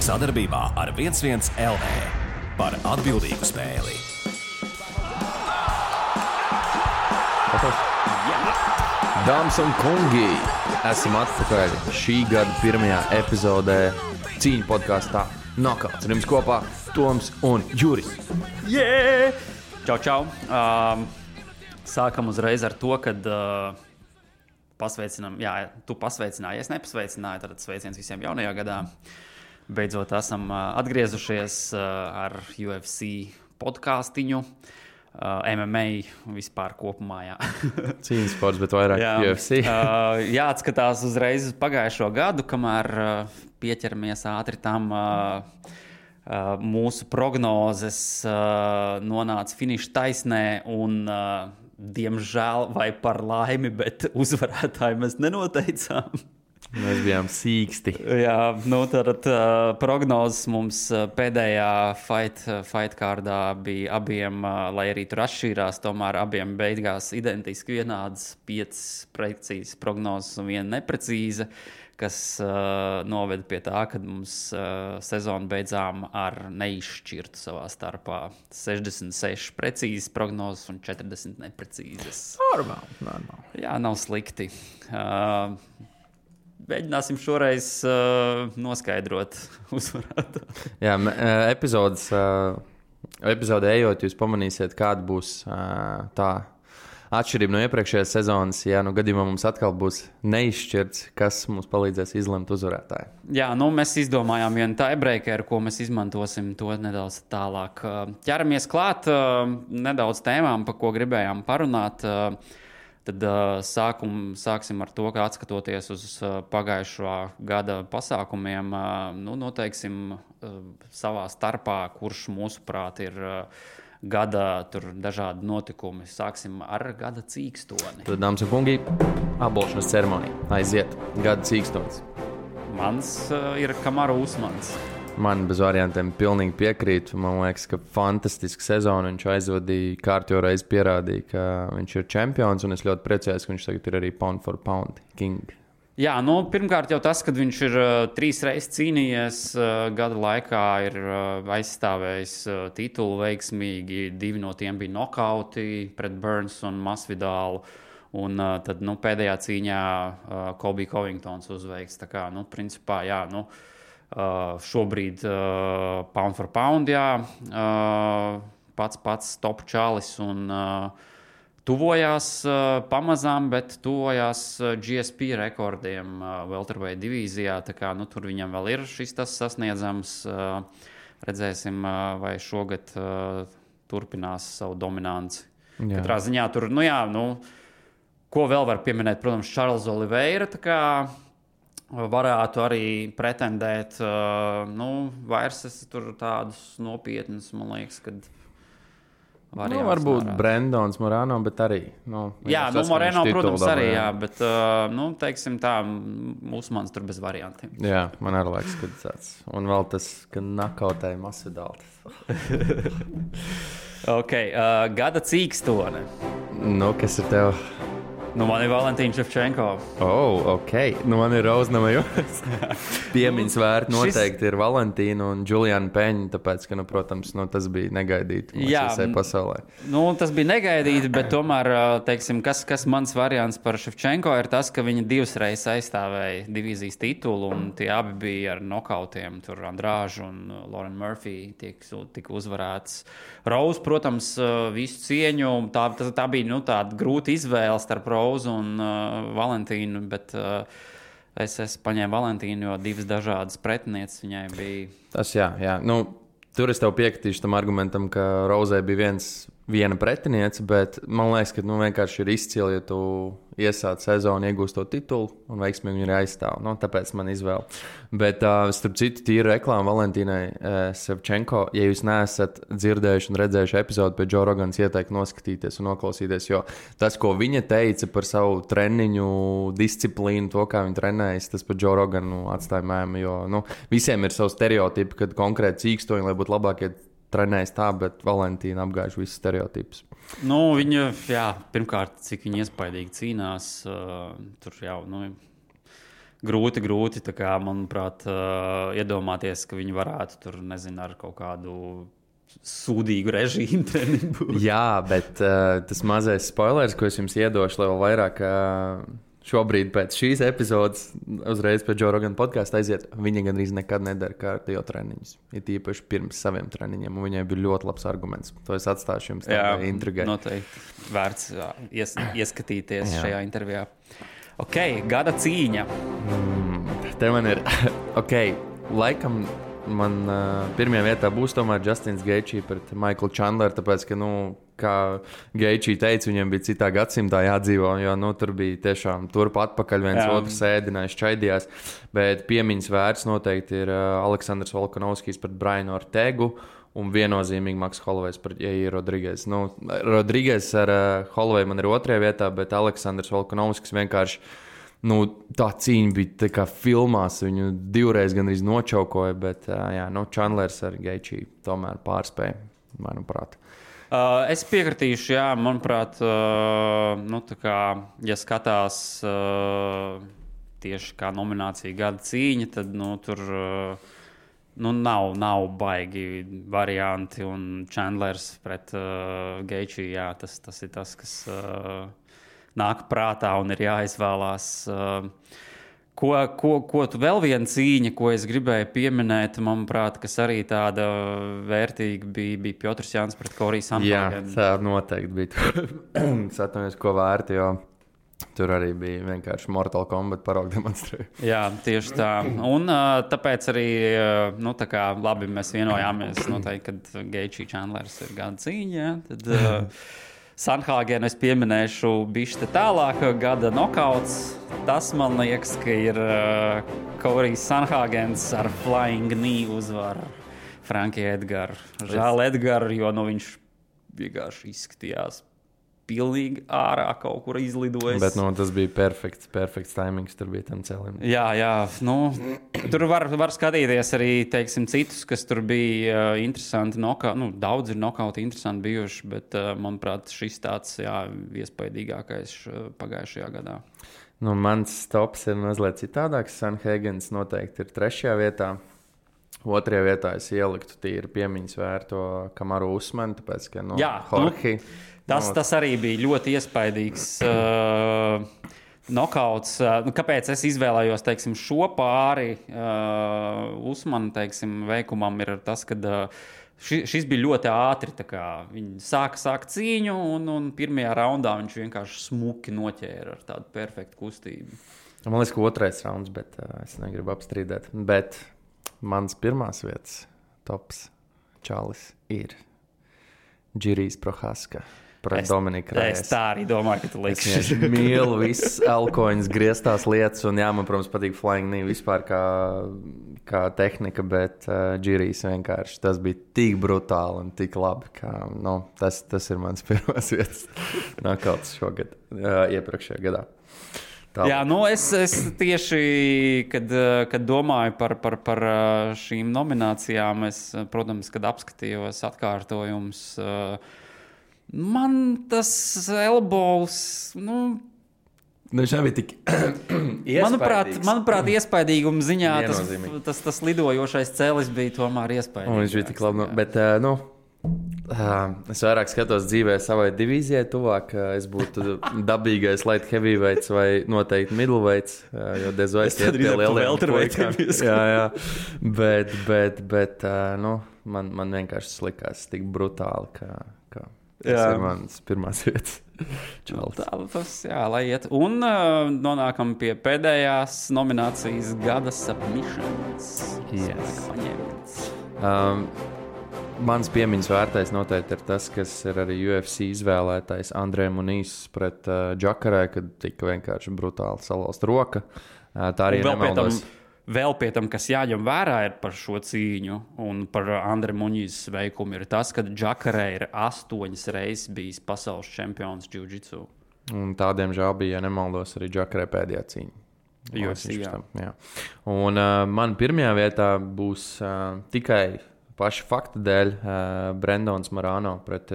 Sadarbībā ar 11 LV par atbildīgu spēli. Dāmas un kungi, esam atpakaļ šī gada pirmajā epizodē cīņu podkāstā Knockouts. Ar jums kopā Toms un Juris. Yeah! Čau, čau! Sākam uzreiz ar to, kad pasveicinām, tu pasveicināji, es nepasveicināju, tad sveiciens visiem jaunajā gadā. Beidzot esam atgriezušies ar UFC podkāstiņu. MMA vispār kopumā, jā. Cīņas sports, bet vairāk UFC. Jāatskatās uzreiz uz pagājušo gadu, kamēr pieķeramies ātri tam mūsu prognozes nonāca finiša taisnē un, diemžēl vai par laimi, bet uzvarētāju mēs nenoteicām. Mēs bijām sīksti. Jā, nu tad prognozes mums pēdējā fight kārdā bija abiem, lai arī tur atšķīrās, tomēr abiem beigās identiski vienādas 5 precīzas prognozes un 1 neprecīza, kas noveda pie tā, ka mums sezonu beidzām ar neizšķirtu savā starpā 66 precīzas prognozes un 40 neprecīzas. Normāli. Jā, nav slikti. Mēģināsim šoreiz noskaidrot uzvarētu. Jā, epizodē ejot, jūs pamanīsiet, kāda būs tā atšķirība no iepriekšējās sezonas. Jā, nu gadījumā mums atkal būs neizšķirts, kas mums palīdzēs izlemt uzvarētāju. Jā, nu mēs izdomājām vienu tiebreakeru, ko mēs izmantosim to nedaudz tālāk. Ķeramies klāt nedaudz tēmām, par ko gribējām parunāt. Tad sāksim ar to, ka atskatoties uz pagājušā gada pasākumiem, noteiksim savā starpā, kurš mūsuprāt ir gada dažādi notikumi. Sāksim ar gada cīkstoni. Tad, dāmas un kungi, apbalvošanas ceremonija. Aiziet, gada cīkstonis. Mans ir Kamaru Usmans. Man bez variantiem pilnīgi piekrīt. Man liekas, ka fantastiska sezona. Viņš aizvadīja kārtīgi reizi pierādīja, ka viņš ir čempions. Un es ļoti priecājos, ka viņš tagad ir arī pound for pound king. Jā, pirmkārt jau tas, ka viņš ir 3 reizes cīnījies gada laikā, ir aizstāvējis titulu veiksmīgi. 2 no tiem bija nokauti pret Burns un Masvidālu. Un tad pēdējā cīņā Colby Covingtons uzveiks. Tā kā, principā, jā, šobrīd pound for pound, pats top čalis un tuvojās pamazām, bet tuvojās GSP rekordiem welterweight divīzijā, tā kā tur viņam vēl ir tas sasniedzams. Redzēsim, vai šogad turpinās savu dominanci. Jā. Katrā ziņā tur, ko vēl var pieminēt, protams, Charles Oliveira, tā kā varētu arī pretendēt, vairs es tur tādus nopietnus, man liekas, kad varbūt Brendons Moreno, bet arī. Jā, Moreno, protams, arī, jā, bet, teiksim tā, Usmans tur bez variantiem. Jā, man arī liekas, ka tāds. Un vēl tas, ka nakautēja Masvidālu. Ok, gada cīkstone. Kas ir tev? Man ir Valentīns Ševčenko. Ok. Man ir Roznamajos. Piemiņas vērti noteikti ir Valentīna un Juliana Peņa, tāpēc, ka, protams, tas bija negaidīti visai pasaulē. Tas bija negaidīti, bet tomēr, teiksim, kas mans variants par Ševčenko ir tas, ka viņa 2 reizes aizstāvēja divīzijas titulu, un tie abi bija ar nokautiem. Tur Andrāžu un Lauren Murphy tika uzvarēts. Rose, protams, visu cieņu. Tā bija tāda grūta izvēle starp Rose un Valentīnu, bet es paņēmu Valentīnu, jo 2 dažādas pretinieces viņai bija. Tas jā. Tur es tev piekritīšu tam argumentam, ka Rozei bija viena pretiniece, bet man liekas, ka vienkārši ir izcili, ja tu iesāc sezonu, iegūst to titulu un veiksmīgi viņu arī aizstāv. Tāpēc man izvēle. Bet starp citu tīru reklāmu Valentīnai Ševčenko, ja jūs neesat dzirdējuši un redzējuši epizodi pie Joe Rogans, ieteiktu noskatīties un noklausīties, jo tas, ko viņa teica par savu treniņu disciplīnu, to, kā viņa trenējas, tas par Joe Roganu atstāja mēmu, jo visiem ir savu stereotipu, kad konkrēti cīkstoņi, lai būtu labākie trenējas tā, bet Valentīna apgājuši visus stereotipus. Viņa, pirmkārt, cik viņa iespaidīgi cīnās, tur jau, grūti tā kā, manuprāt, iedomāties, ka viņi varētu tur, nezinu, ar kaut kādu sūdīgu režīmu treniņu. Jā, bet tas mazais spoilers, ko es jums iedošu, lai vēl vairāk šobrīd pēc šīs epizodes, uzreiz pēc Joe Rogan podkāsta aiziet, viņa gandrīz nekad nedara kārtējo treniņus. Ir īpaši pirms saviem treniņiem, un viņai bija ļoti labs arguments. To es atstāšu jums tādā intrigai. Noteikti vērts ieskatīties šajā intervijā. Ok, gada cīņa. Te man ir, laikam man pirmajā vietā būs tomēr Justins Gaethje pret Michaelu Chandleru, tāpēc, ka, kā Gaethje teica, viņiem bija citā gadsimtā jādzīvo, jo, tur bija tiešām turp atpakaļ, viens otrs ēdinājis, čaidījās, bet piemiņas vērts noteikti ir Aleksandrs Volkanovskis pret Brianu Ortegu un viennozīmīgi Maks Holloway's pret Jair Rodriguez. Rodriguez ar Holloway man ir otrajā vietā, bet Aleksandrs Volkanovskis vienkārši tā cīņa bija tā kā filmās, viņu divreiz gandrīz nočaukoja, bet Chandlers ar Gaethje tomēr pārspēja, manuprāt. Es piekritīšu, manuprāt, tā kā, ja skatās tieši kā nominācija gada cīņa, tad, tur nav baigi varianti, un Chandlers pret Gaethje, tas ir tas, kas nāk prātā un ir jāizvēlās. Ko tu vēl viena cīņa, ko es gribēju pieminēt, manuprāt, kas arī tāda vērtīga bija Piotrs Jānis pret Koriju Sanhāgenu. Jā, tā noteikti bija. Es atceros, ko vērti, jo tur arī bija vienkārši Mortal Kombat paraugu demonstrēja. Jā, tieši tā. Un tāpēc arī, tā kā labi mēs vienojāmies noteikti, kad Gaethje Chandlers ir gada cīņa, tad Sanhāgenu es pieminēšu bišķi tālāk, gada nokauts. Tas man liekas, ka ir Korijs Sanhāgens ar flying knee uzvaru Frankie Edgaru. Žēl Edgaru, jo viņš vienkārši izskatījās pilnīgi ārā kaut kur izlidojis. Bet tas bija perfekts timings, tur bija tam cēlim. Jā, tur var skatīties arī, teiksim, citus, kas tur bija interesanti. Daudz ir nokauti interesanti bijuši, bet, manuprāt, šis tāds, iespaidīgākais pagājušajā gadā. Mans tops ir mazliet citādāks. Sanhāgens noteikti ir 3. vietā. 2. vietā es ieliktu tīri piemiņas vērto Kamaru Usmanu, tāpēc, ka Jorge. Tas arī bija ļoti iespaidīgs nokauts. Kāpēc es izvēlējos, teiksim, šo pāri Usmanu, teiksim, veikumam ir tas, ka šis bija ļoti ātri. Viņi sāka cīņu un pirmajā raundā viņš vienkārši smuki noķēra ar tādu perfektu kustību. Man liekas, ka 2. rauns, bet es negribu apstrīdēt. Bet mans pirmās vietas tops čalis ir Jirijs Prochazka. Es tā arī domāju, ka tu liksi. Es mīlu visas alkoņas grieztās lietas, un man, protams, patīk flying knee vispār kā tehnika, bet Jirijs vienkārši tas bija tik brutāli un tik labi, ka tas ir mans pirmās vietas nokauts šogad, iepriekšējā gadā. Es tieši, kad domāju par šīm nominācijām, es, protams, kad apskatījos atkārtojums, man tas elbows, viņš nebija tik manuprāt, iespaidīguma ziņā tas lidojošais cēlis bija tomēr iespaidīgs. Viņš bija tik labi, bet, es vairāk skatos dzīvē savai divīzijai tuvāk, es būtu dabīgais light heavyweights vai noteikti middleweights, jo Dezois iet pie lieliem puikām. Jā, bet, man vienkārši likās tik brutāli, ka tas ir mans pirmās vietas. Lai iet. Un nonākam pie pēdējās nominācijas gada submissions. Mans piemiņas vērtais noteikti ir tas, kas ir arī UFC izvēlētais Andrē Munīs pret Džakarē, kad tika vienkārši brutāli salauzt roka. Tā arī nemaldos. Vēl pie tam, kas jāņem vērā ir par šo cīņu un par Andrē Muņīs veikumu, ir tas, ka Džakarē ir 8 reizes bijis pasaules čempions jiu-jitsu. Un tādiem žēl bija, ja nemaldos, arī Džakarē pēdējā cīņa. Jā. Un man pirmajā vietā būs tikai paša fakta dēļ Brendons Morano pret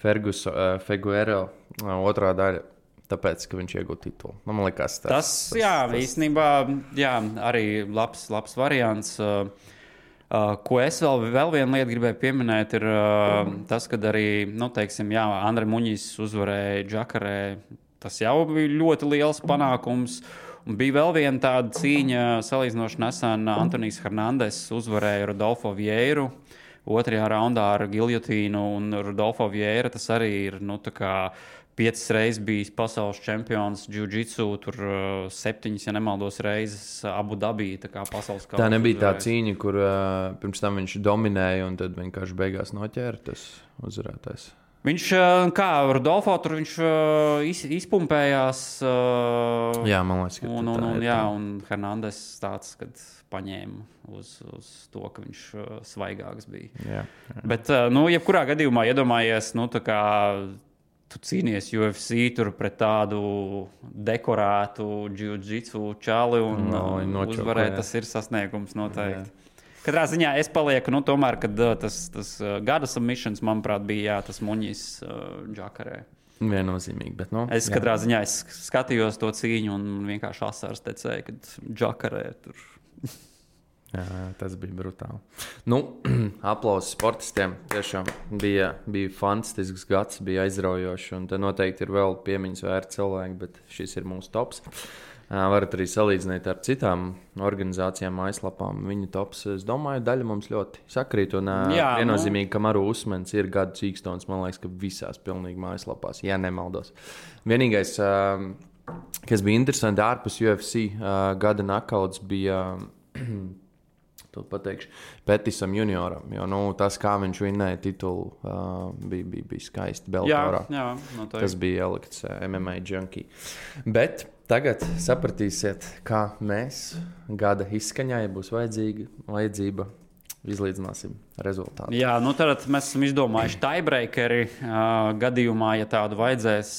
Figueroa otrā daļa. tāpēc, ka viņš iegūta titulu. Man liekas, tas īstenībā arī labs variants. Ko es vēl vienu lietu gribēju pieminēt, ir tas, ka arī, Andre Muņis uzvarēja Džakarē. Tas jau bija ļoti liels panākums. Un bija vēl viena tāda cīņa, salīdzinoši nesen Antonijs Hernandez uzvarēja Rodolfo Vieiru 2. raundā ar giljotīnu. Un Rodolfo Vieira tas arī ir 5 reizes bijis pasaules čempions jiu-jitsu, tur 7, ja nemaldos, reizes Abu Dabī, pasaules kausa. Tā nebija tā cīņa, kur pirms tam viņš dominēja un tad vienkārši beigās noķēra tas uzvarētājs. Viņš, Rodolfo, tur viņš izpumpējās. Jā, man liekas, ka un Hernandez tāds, kad paņēma uz to, ka viņš svaigāks bija. Jā. Bet, jebkurā gadījumā iedomājies, tu cīnies UFC tur pret tādu dekorētu jiu-jitsu čali un uzvarēt, tas ir sasniegums noteikti. Katrā ziņā es palieku, tomēr, kad tas gada submissions, manuprāt, bija tas Muņis Džakarē. Viennozīmīgi, bet katrā ziņā es skatījos to cīņu un vienkārši asars tecēja, kad Džakarē tur. Jā, tas bija brutāli. Aplausi sportistiem. Tiešām bija fantastisks gads, bija aizraujoši. Un te noteikti ir vēl piemiņas vērti cilvēki, bet šis ir mūsu tops. Varat arī salīdzināt ar citām organizācijām, aizlapām. Viņu tops, es domāju, daļa mums ļoti sakrīt. Un viennozīmīgi, ka Maru Usmens ir gada cīkstons, man liekas, ka visās pilnīgi mājaslapās, ja nemaldos. Vienīgais, kas bija interesanti ārpus UFC gada nakauts, bija... To pateikšu Petisam junioram, jo tas, kā viņš vinnēja titulu, bija skaisti Bellatorā. Jā, tas bija ielikts MMA junkie. Bet tagad sapratīsiet, kā mēs gada izskaņā, ja būs vajadzība, izlīdzināsim rezultātu. Jā, tad mēs esam izdomājuši tiebreakeri gadījumā, ja tādu vajadzēs.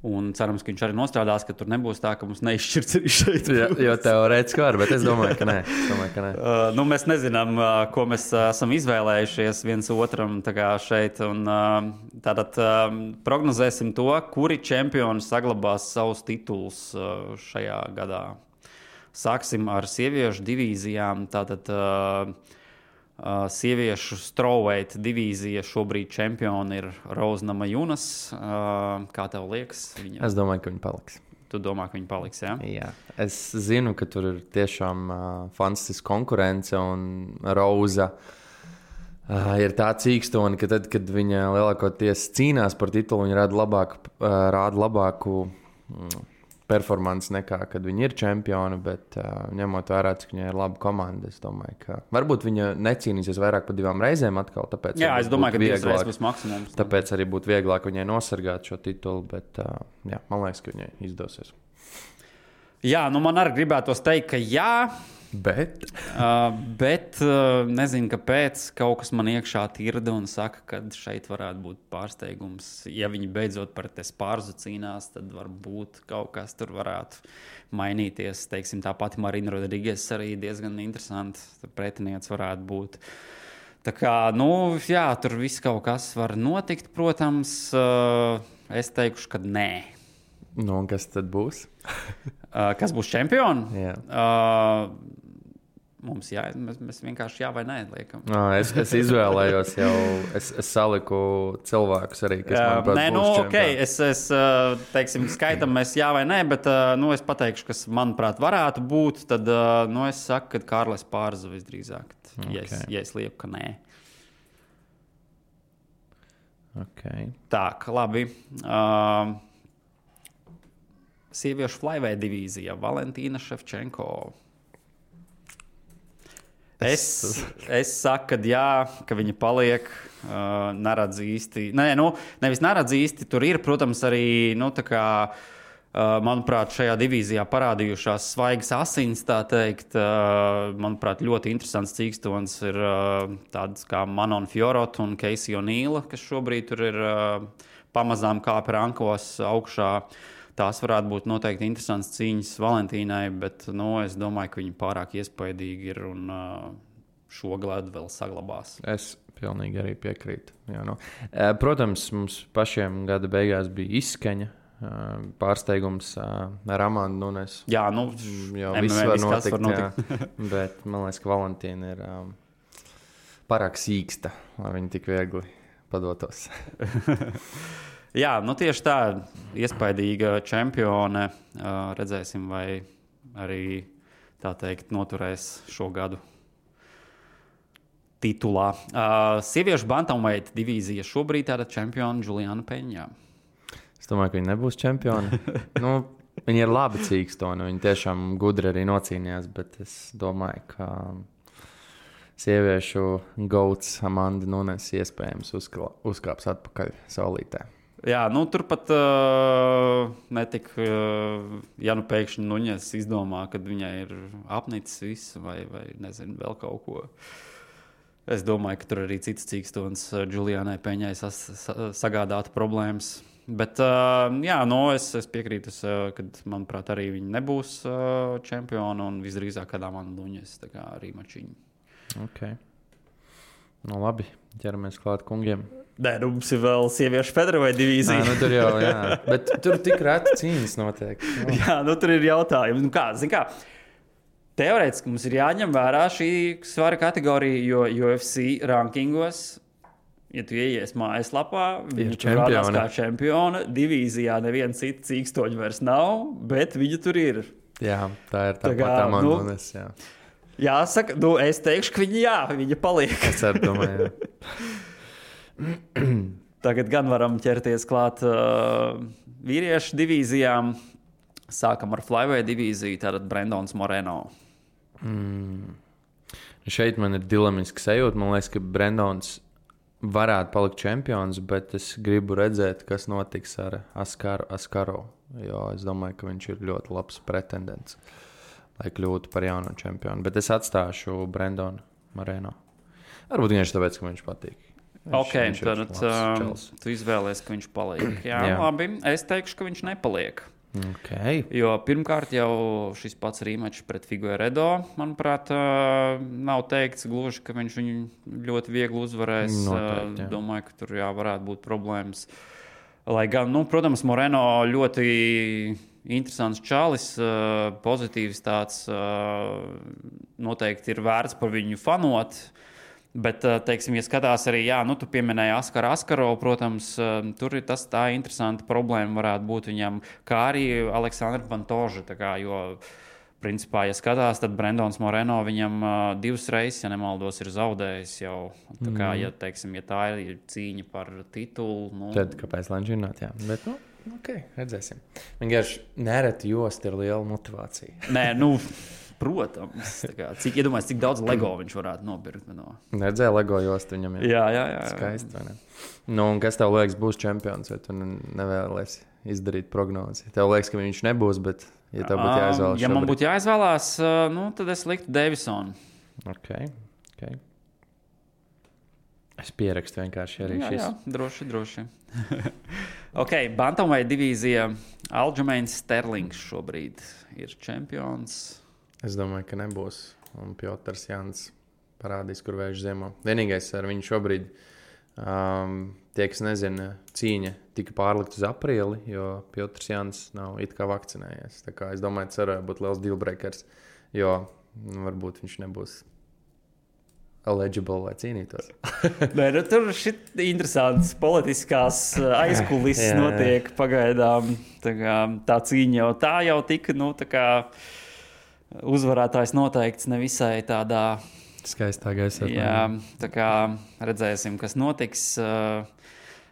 Un cerams, ka viņš arī nostrādās, ka tur nebūs tā, ka mums neizšķirts arī šeit. Jo teorētiski var, bet es domāju, ka nē. Mēs nezinām, ko mēs esam izvēlējušies viens otram šeit. Un, tātad prognozēsim to, kuri čempioni saglabās savus titulus šajā gadā. Sāksim ar sieviešu divīzijām. Tātad sieviešu strawweight divīzija šobrīd čempioni ir Rose Namajunas. Kā tev liekas? Es domāju, ka viņa paliks. Tu domā, ka viņa paliks, jā? Jā. Es zinu, ka tur ir tiešām fantastiska konkurence un Rose ir tā cīkstoni, ka tad, kad viņa lielākoties cīnās par titulu, viņa rāda labāku performance nekā, kad viņi ir čempioni, bet ņemot vērā, cik viņai ir laba komanda, es domāju, ka varbūt viņa necīnīsies vairāk par 2 reizēm atkal, tāpēc es domāju, ka 2 reizes būs maksimums. Tāpēc arī būtu vieglāk viņai nosargāt šo titulu, bet man liekas, ka viņai izdosies. Jā, man arī gribētos teikt, ka jā, bet nezinu, kāpēc kaut kas man iekšā tirda un saka, ka šeit varētu būt pārsteigums. Ja viņi beidzot par Spārzu cīnās, tad varbūt kaut kas tur varētu mainīties. Teiksim, tā pati Marina Rodrigues arī diezgan interesanti pretinieks varētu būt. Tā kā, tur viss kaut kas var notikt, protams. Es teikšu, ka nē. Un kas tad būs? Kas būs čempioni? Jā. Mums mēs vienkārši jā vai nē liekam. Es izvēlējos jau, es saliku cilvēkus arī, kas manuprāt būs čempioni. Es teiksim, skaitam mēs jā vai nē, bet es pateikšu, kas manuprāt varētu būt, tad es saku, ka Kārlis Pārza visdrīzāk, ja es lieku, ka nē. Okay. Tā, labi. Sieviešu flyweight divīzija Valentīna Ševčenko. Es saku, ka jā, ka viņa paliek, neredz īsti. Nevis neredz īsti, tur ir, protams, arī, manuprāt, šajā divīzijā parādījušās svaigas asins, tā teikt. Manuprāt, ļoti interesants cīkstons ir tāds kā Manon Fiorot un Casey O'Neila, kas šobrīd tur ir pamazām kāp rankos augšā. Tās varētu būt noteikti interesants cīņas Valentīnai, bet es domāju, ka viņa pārāk iespaidīgi ir un šo gadu vēl saglabās. Es pilnīgi arī piekrītu. Jā, no. Protams, mums pašiem gada beigās bija izskaņa. Pārsteigums ar Amandu Nunes. Jā, nu, jau viss var notikt. Bet man liekas, ka Valentīna ir pārāk sīksta, lai viņi tik viegli padotos. Jā, nu tieši tā, iespaidīga čempione. Redzēsim, vai arī tā teikt noturēs šo gadu titulā. Sieviešu bantamweight divīzija šobrīd tāda čempiona Juliana Peņā. Es domāju, ka viņi nebūs čempioni. Viņi ir labi cīkstoni, viņi tiešām gudri arī nocīnījās, bet es domāju, ka sieviešu gauts Amanda Nunes iespējams uzkāps atpakaļ saulītē. Jā, nu turpat netika, ja nu pēkšņi Nuņas izdomā, kad viņai ir apnicis viss vai nezinu, vēl kaut ko. Es domāju, ka tur arī cits cīkstons Julianai Peņai sagādātu problēmas. Bet, jā, nu es piekrītu, kad, manuprāt, arī viņi nebūs čempioni un visdrīzāk kādā man Nuņas, tā kā arī mačiņi. Ok. Nu labi, ķeramies klāt kungiem. Nē, nu mums ir vēl sieviešu featherweight divīzija. Nu tur jau, jā. Bet tur tik reti cīņas notiek. Jā, nu tur ir jautājumi. Nu kā, zin kā, teorētiski mums ir jāņem vērā šī svara kategorija, jo UFC rankingos, ja tu ieies mājaslapā, viņa tur rādās kā čempiona. Divīzijā neviena cita cīkstoņa vairs nav, bet viņa tur ir. Jā, tā ir tāpat Amanda Nunes, jā. Jāsaka, nu es teikšu, ka viņa paliek. Es arī domāju, jā. Tagad gan varam ķerties klāt vīriešu divīzijām. Sākam ar flyweight divīziju, tātad Brendons Moreno. Šeit man ir dilemiski sajūta. Man liekas, ka Brendons varētu palikt čempions, bet es gribu redzēt, kas notiks ar Askaro. Jo es domāju, ka viņš ir ļoti labs pretendents, lai kļūtu par jauno čempionu. Bet es atstāšu Brendonu Moreno. Varbūt vienkārši tāpēc, ka viņš patīk. Tad tu izvēlies, ka viņš paliek. Jā, labi. Es teikšu, ka viņš nepaliek. Okay. Jo pirmkārt jau šis pats rematch pret Figueiredo, manuprāt, nav teikts gluži, ka viņš viņu ļoti viegli uzvarēs. Noteikti, domāju, ka tur varētu būt problēmas. Lai gan, protams, Moreno ļoti interesants čalis, pozitīvs tāds, noteikti ir vērts par viņu fanot. Bet, teiksim, ja skatās arī, tu pieminēji Askaro, protams, tur ir tā interesanta problēma varētu būt viņam, kā arī Aleksandra Pantoža, jo, principā, ja skatās, tad Brendons Moreno viņam 2 reizes, ja nemaldos, ir zaudējis jau. Tā kā, ja tā ir cīņa par titulu. Tad kāpēc lai žināt, jā. Bet, ok, redzēsim. Vienkārši nereti jost ir liela motivācija. Nē, protams. Iedomājieties, cik daudz Lego viņš varētu nopirkt. Neredzēja Lego jostu viņam. Jā. Skaisti, vai ne? Un kas tev liekas būs čempions, vai tu nevēlies izdarīt prognozi? Tev liekas, ka viņš nebūs, bet ja tev būtu jāizvēlas. Ja man būtu jāizvēlās, tad es liktu Davisonu. Ok. Es pierakstu vienkārši arī šis. Jā, droši. Ok, bantamweight divīzija. Aljamains Sterlings šobrīd ir čempions. Es domāju, ka nebūs. Un Piotrs Jānis parādīs, kur vējš ziemo. Vienīgais ar viņu šobrīd, tie, kas nezina, cīņa tika pārlikt uz aprīli, jo Piotrs Jānis nav it kā vakcinējies. Tā kā es domāju, tas varētu būt liels dealbreakers, jo varbūt viņš nebūs eligible, lai cīnītos. Nē, tur šit interesants politiskās aizkulises notiek pagaidām. Tā cīņa jau tika, uzvarētājs noteikts nevisai tādā skaistā gaisā. Jā, tā kā redzēsim, kas notiks.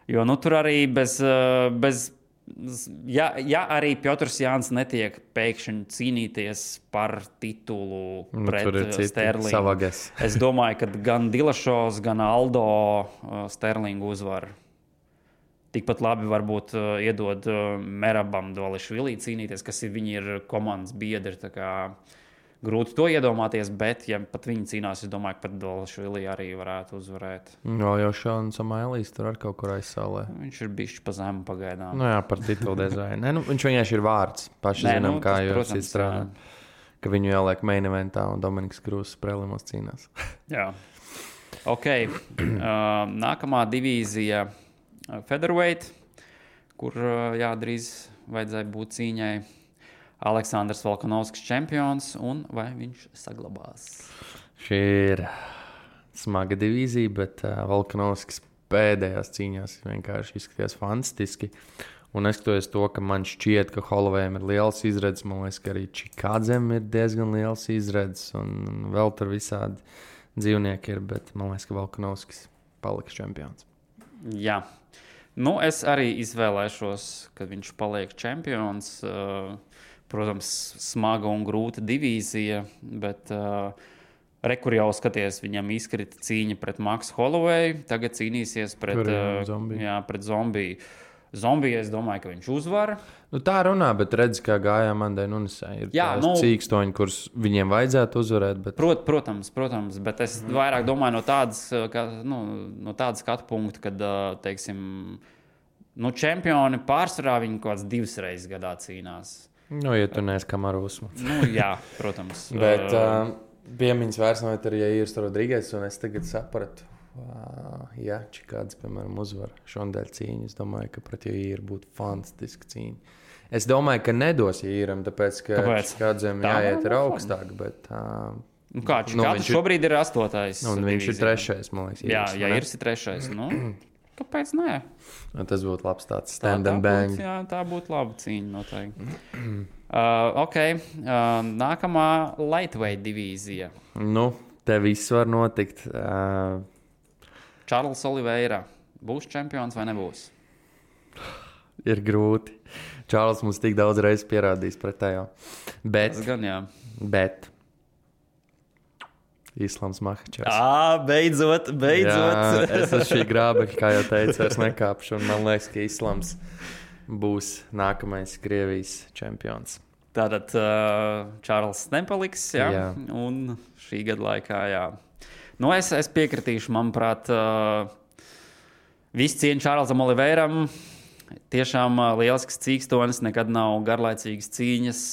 Jo tur arī ja arī Piotrs Jānis netiek pēkšņi cīnīties par titulu pret Sterlingu. Es domāju, ka gan Dilašovs, gan Aldo Sterlingu uzvar. Tikpat labi varbūt iedod Merabam Dvališvili cīnīties, kas viņi ir komandas biedri. Grūti to iedomāties, bet, ja pat viņi cīnās, es domāju, ka pat Dvališvili arī varētu uzvarēt. Jau Šāns Samailīs tur ar kaut kur aizsālē. Viņš ir bišķi pa zemu pagaidām. Jā, par titulu dizainu. Viņš vienkārši ir vārds. Paši zinām, kā jūs strādājat. ka viņu ieliek main eventā un Dominiks Krūzs prelimos cīnās. Jā. Ok. Nākamā divīzija featherweight, kur drīz vajadzēja būt cīņai. Aleksandrs Volkanovskis čempions, un vai viņš saglabās? Šī ir smaga divīzija, bet Volkanovskis pēdējās cīņās vienkārši izskatījās fantastiski. Un neskatoties to, ka man šķiet, ka Hollowayam ir liels izredzes, man liekas, ka arī Čikādzem ir diezgan liels izredzes, un vēl tur visādi dzīvnieki ir, bet man liekas, ka Volkanovskis paliks čempions. Jā. Nu, es arī izvēlēšos, ka viņš paliek čempions. Protams, smaga un grūta divīzija, bet kur jau skaties, viņam izkrita cīņa pret Maksu Hollowayu, tagad cīnīsies pret Zombiju. Zombiju, es domāju, ka viņš uzvar. Nu, tā runā, bet redz, kā gājām Mandai Nunesai. Ir cīkstoņi, kurus viņiem vajadzētu uzvarēt. Bet... Protams, bet es vairāk domāju no tādas skatu punkta, kad, teiksim, čempioni pārsvarā viņi kaut kāds 2 reizes gadā cīnās. Nu, ja tu neesi Kamaru Usmans. Jā, protams. Bet piemiņas vairs nav arī Jairs Rodrīgais, un es tagad sapratu, ja Čikāds, piemēram, uzvar šodien cīņu, es domāju, ka pret Jairu būtu fantastiska cīņa. Es domāju, ka nedos Jairam, tāpēc, ka Čikādzem jāiet ir augstāk, bet... Čikāds šobrīd ir 8. Un viņš ir 3. man liekas. Jā, Jairs ir 3. Kāpēc nē? Tas būtu labs tāds stand and bang. Tā būtu laba cīņa noteikti. Ok. Nākamā lightweight divīzija. Nu, te viss var notikt. Čārls Oliveira. Būs čempions vai nebūs? Ir grūti. Čārls mums tik daudz reizes pierādījis pretējo. Tas gan, jā. Bet... Islams Makhačevs. Beidzot. Jā, es uz šī grābekļa, kā jau teicu, vairs nekāpšu. Un man liekas, ka Islams būs nākamais Krievijas čempions. Tātad Čārls nepaliks, jā. Un šī gada laikā, jā. Nu, es piekritīšu, manuprāt, viss cieņa Čārlzam Oliveiram. Tiešām lielisks cīkstonis, nekad nav garlaicīgas cīņas.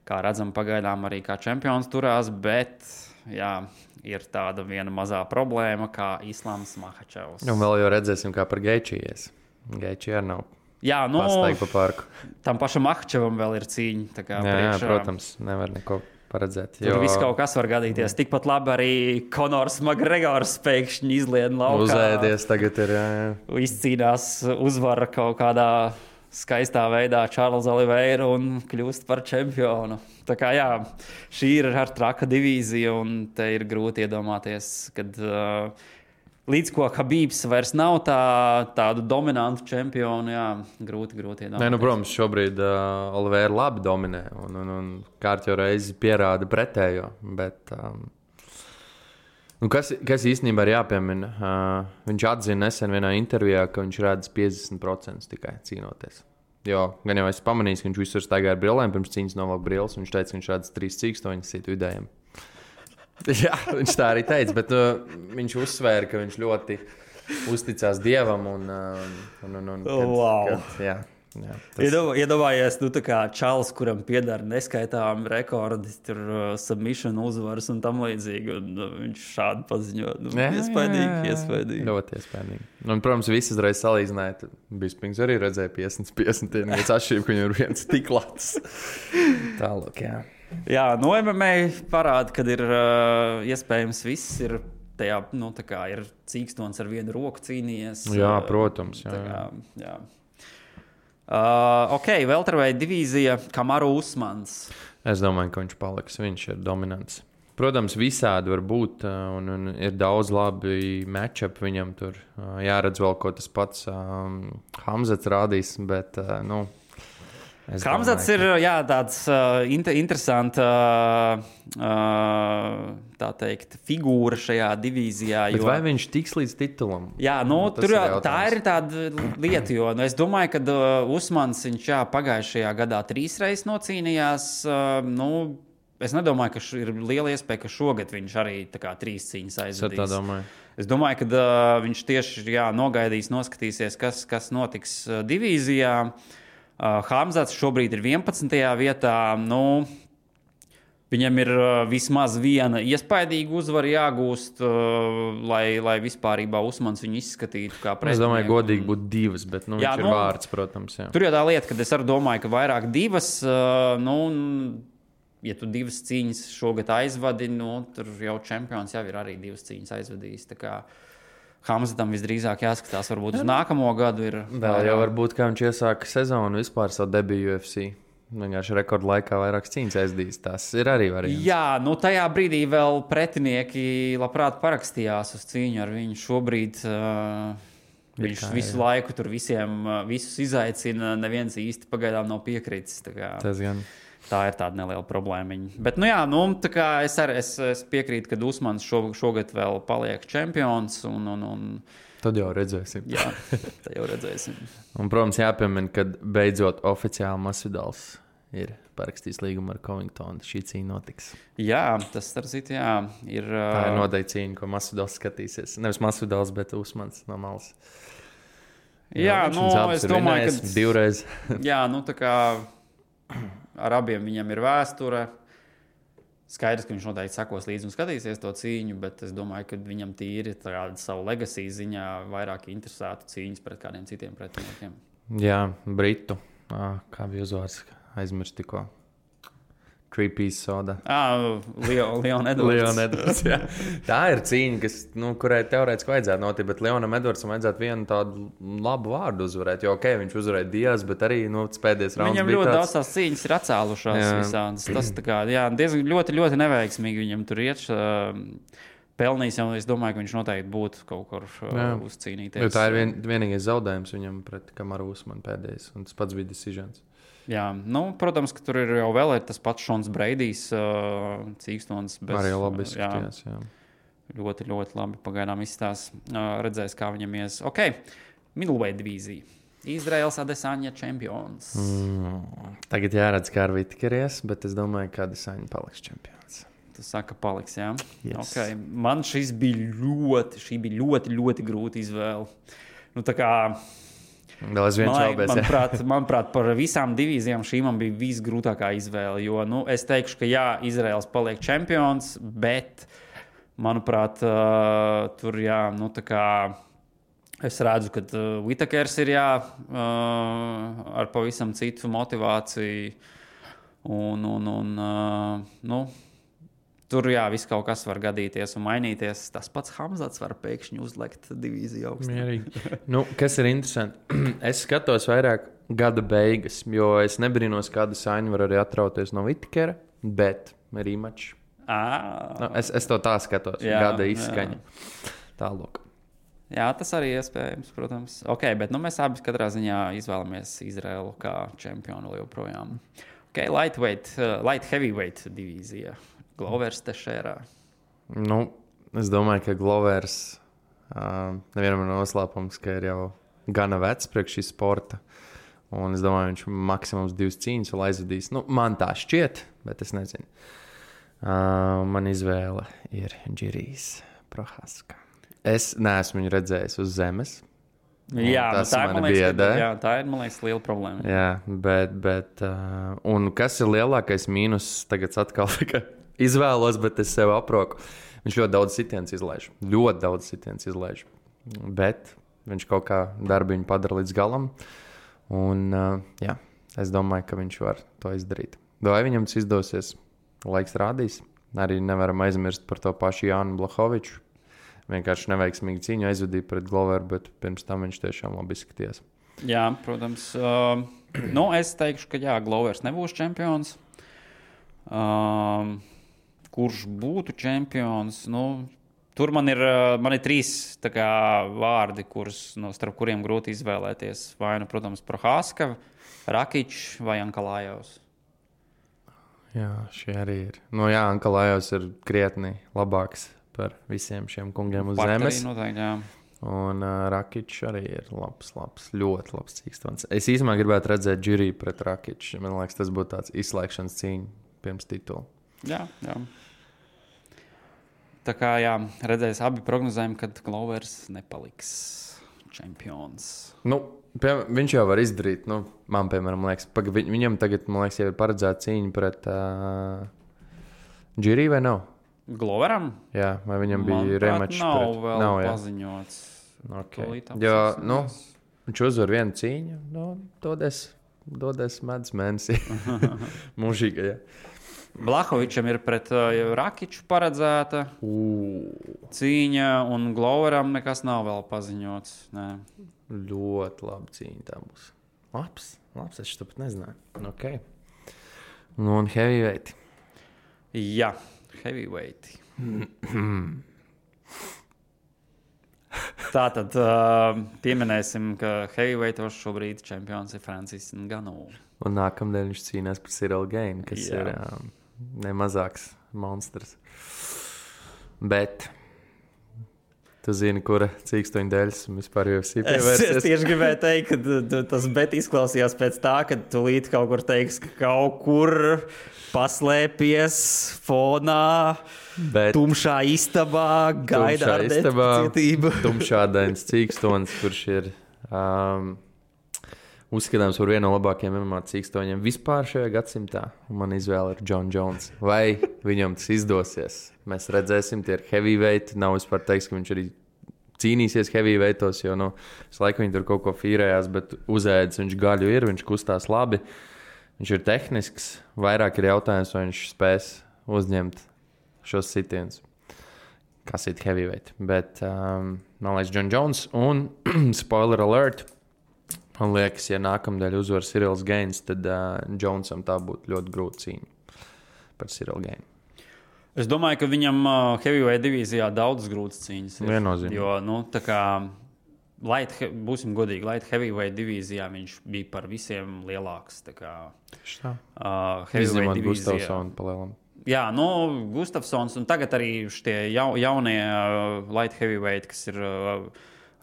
Kā redzam, pagaidām arī kā čempions turās, bet... Jā, ir tāda viena mazā problēma, kā Islams Makhačevs. Un vēl jau redzēsim, kā par Geičijas. Geičija arī nav pastaigta pa parku. Tam pašam Makhačevam vēl ir cīņa. Jā, protams, nevar neko paredzēt. Tur viss kaut kas var gadīties. Tikpat labi arī Konors Makgregors pēkšņi izlien laukā. Uzēdies tagad ir, jā. Izcīnās uzvaru kaut kādā skaistā veidā Čārls Oliveiru un kļūst par čempionu. Tā kā jā, šī ir ar traka divīzija un te ir grūti iedomāties, kad līdz ko Habibs vairs nav tādu dominantu čempionu, jā, grūti iedomāties. Nē, protams, šobrīd Oliveira labi dominē un kārtjo reizi pierāda pretējo, bet... Kas īstenībā ir jāpiemina? Viņš atzina nesen vienā intervijā, ka viņš redz 50% tikai cīnoties. Jo gan jau es pamanīju, ka viņš visur staigā ar brillēm, pirms cīņas novelk brilles, un viņš teica, ka viņš redz 3 cīkstoņus citu vidējiem. Jā, viņš tā arī teica, bet viņš uzsvēra, ka viņš ļoti uzticās Dievam Iedomājies, tā kā Čārls, kuram pieder neskaitām rekordi, tur submission uzvaras un tam līdzīgi, un viņš šādi paziņo. Iespaidīgi. Ļoti iespaidīgi. Un, protams, visas reizes salīdzināja, Bispings arī redzēja 50-50, viens atšķirība, ka viņam ir viens tik labs. Tālāk, jā. Jā, MMA parāda, kad ir iespējams viss ir tajā, tā kā ir cīkstons ar vienu roku cīnījies. Jā, protams. Jā. Ok, welterweight divīzija Kamaru Usmans. Es domāju, ka viņš paliks. Viņš ir dominants. Protams, visādi var būt, un ir daudz labi matchup viņam tur. Jāredz vēl, ko tas pats Hamzats rādīs, bet, Hamzats ir tāds interesants tā teikt, figūra šajā divīzijā. Bet vai viņš tiks līdz titulam? Jā, tā ir tāda lieta, jo es domāju, ka Usmans viņš pagājušajā gadā 3 reizes nocīnījās. Es nedomāju, ka ir liela iespēja, ka šogad viņš arī 3 cīņas aizvadīs. Es domāju, ka viņš tieši nogaidīs, noskatīsies, kas notiks divīzijā. Hamzats šobrīd ir 11. vietā. Viņam ir vismaz viena iespaidīga uzvara jāgūst, lai vispārībā Usmans viņu izskatītu kā pretinieku. Es domāju, godīgi būtu divas, bet viņš ir vārds, protams. Jā. Tur jau tā lieta, ka es arī domāju, ka vairāk divas, ja tu divas cīņas šogad aizvadi, tur jau čempions jau ir arī divas cīņas aizvadījis. Tā kā Hamzatam visdrīzāk jāskatās varbūt uz nākamo gadu. Vēl jau varbūt, kā viņš iesāka sezonu vispār savu debiju UFC. Vienkārši rekordu laikā vairākas cīņas aizdīs. Tas ir arī variants. Jā, tajā brīdī vēl pretinieki labprāt parakstījās uz cīņu ar viņu. Šobrīd viņš visu laiku tur visus izaicina. Neviens īsti pagaidām nav piekritis. Tā ir tāda neliela problēma. Bet, tā kā es piekrītu, ka Usmans šogad vēl paliek čempions. Tad jau redzēsim. Jā, tad jau redzēsim. Un, protams, jāpiemina, ka beidzot oficiāli Masvidals ir parakstījis līgumu ar Covingtonu. Šī cīņa notiks. Jā, tas ir. Tā ir noteikti cīņa, ko Masvidals skatīsies. Nevis Masvidals, bet Usmans no malas. Jā, es domāju, ka divreiz. Jā, tā kā ar abiem viņam ir vēsture. Skaidrs, ka viņš noteikti sekos līdzi un skatīsies to cīņu, bet es domāju, ka viņam tīri savu legacy ziņā vairāk interesētu cīņas pret kādiem citiem pretiniekiem. Jā, Britu. Kā bija uzvārds? Aizmirst tikko. Three-piece soda. Leon Edwards. Tā ir cīņa, kurai teorētiski vajadzētu notikt, bet Leonam Edwardsam vajadzētu vienu tādu labu vārdu uzvarēt. Jo, viņš uzvarēja Diaz, bet arī pēdējais rauns viņam ļoti daudz tās cīņas ir atcēlušās visādas. Tas diezgan ļoti, ļoti neveiksmīgi viņam tur iet. Pelnījis jau, es domāju, ka viņš noteikti būtu kaut kur uzcīnīties. Jo tā ir vienīgais zaudējums viņam pret Kamaru Usmanu pēdējais, un tas pats bija decisions. Jā, protams, ka tur ir jau vēl tas pats Šons Breidijs, cīkstons. Arī labi izskatījās, jā. Ļoti, ļoti labi pagaidām izstās. Redzēs, kā viņam ies. Ok, middleweight divīzija. Izraels Adesanya čempions. Tagad jāredz, kā ar Vitkeries, bet es domāju, ka Adesanya paliks čempions. Tu saka, paliks, jā? Yes. Okay. Man šī bija ļoti, ļoti grūta izvēle. Tā kā... Vēl es viens šaubēs. Manuprāt, par visām divīzijām šī man bija visgrūtākā izvēle. Jo, es teikšu, ka jā, Izraels paliek čempions, bet, manuprāt, tur tā kā es redzu, ka Whitakers ir ar pavisam citu motivāciju. Tur viss kaut kas var gadīties un mainīties. Tas pats Hamzats var pēkšņi uzlikt divīziju augstāk. Kas ir interesanti? Es skatos vairāk gada beigas, jo es nebrīnos, kāda saņa var arī atrauties no Whitakera, bet rematch. Es to tā skatos. Gada izskaņa. Tālāk. Jā, tas arī iespējams, protams. Ok, bet mēs abi katrā ziņā izvēlamies Izraelu kā čempionu joprojām. Ok, light heavyweight divīzija. Glovers Tešērā. Es domāju, ka Glovers nevienam ir noslēpums, ka ir jau gana vecs priekš šī sporta. Un es domāju, viņš maksimums 2 cīņas vēl aizvadīs. Man tā šķiet, bet es nezinu. Man izvēle ir Džirijs Prohaska. Es neesmu viņu redzējis uz zemes. Jā, tā ir, man liekas, liela problēma. Jā, bet un kas ir lielākais mīnus tagad atkal, ka izvēlos, bet es sev aproku. Viņš ļoti daudz sitiens izlaiž. Bet viņš kaut kā darbiņu padara līdz galam. Un es domāju, ka viņš var to izdarīt. Vai viņam tas izdosies? Laiks rādīs. Arī nevaram aizmirst par to pašu Jānu Blahoviču. Vienkārši neveiksmīgi cīņu aizvadīja pret Gloveru, bet pirms tam viņš tiešām labi izskatījās. Jā, protams. Es teikšu, ka Glovers nebūs čempions. Kurš būtu čempions? Tur man ir 3 vārdi, starp kuriem grūti izvēlēties. Vai protams, Prohaska, Rakičs vai Ankalājovs. Jā, šie arī ir. Ankalājovs ir krietni labāks par visiem šiem kungiem uz zemes. Noteikti, jā. Un Rakičs arī ir labs, ļoti labs cīkstons. Es īstenībā gribētu redzēt Džiriju pret Rakiču. Man liekas, tas būtu tāds izslēgšanas cīņa pirms titula. Jā. Tā kā redzēs, abi prognozējam, ka Glovers nepaliks čempions. Viņš jau var izdarīt. Man, piemēram, liekas, viņam tagad, man liekas, jau ir paredzēta cīņa pret Džirī vai nav? Gloveram? Jā, vai viņam bija remačs? Nav vēl jā. paziņots. Okay. Jo, viņš uzvar vienu cīņu, dodies medus mēnesī. Mūžīgi, jā. Blahovičam ir pret Rakiču paredzēta cīņa, un Gloveram nekas nav vēl paziņots. Nē. Ļoti labi cīņa tā būs. Labs, es to pat nezināju. Okay. Un heavyweight. Jā, heavyweight. Tātad pieminēsim, ka heavyweightos šobrīd čempions ir Francis Ngannou. Un nākamdien viņš cīnās par Cyril Gainu, kas ir nemazāks monstrs. Bet tu zini, kura cīkstoņa dēļas vispār UFC pievērsies? Es tieši gribēju teikt, ka tas bet izklausījās pēc tā, ka tu līdz kaut kur teiks, ka kaut kur paslēpies fonā, tumšā istabā, gaida ar necietību. Tumšādains cīkstonis, kurš ir uzskatāms par vienu no labākajiem MMA cīkstoņiem vispār šajā gadsimtā. Man izvēle ir Jon Jones. Vai viņam tas izdosies? Mēs redzēsim, tie ir heavyweight. Nav vispār teiks, ka viņš arī cīnīsies heavyweightos, jo es laiku viņi tur kaut ko fīrējās, bet uzēdis viņš gaļu ir, viņš kustās labi. Viņš ir tehnisks. Vairāk ir jautājums, vai viņš spēs uzņemt šos sitienus. Kas ir heavyweight? Bet man liekas Jon Jones un spoiler alert. Man liekas, ja nākamdēļ uzvar Cyrils Gains, tad Jonesam tā būtu ļoti grūta cīņa par Cyril Gainu. Es domāju, ka viņam heavyweight divīzijā daudz grūtas cīņas ir. Viennozīmīgi. Jo, tā kā būsim godīgi, light heavyweight divīzijā viņš bija par visiem lielāks. Tā kā izņemot Gustafsonu palielam. Jā, Gustafsons un tagad arī šie jaunie light heavyweight, kas ir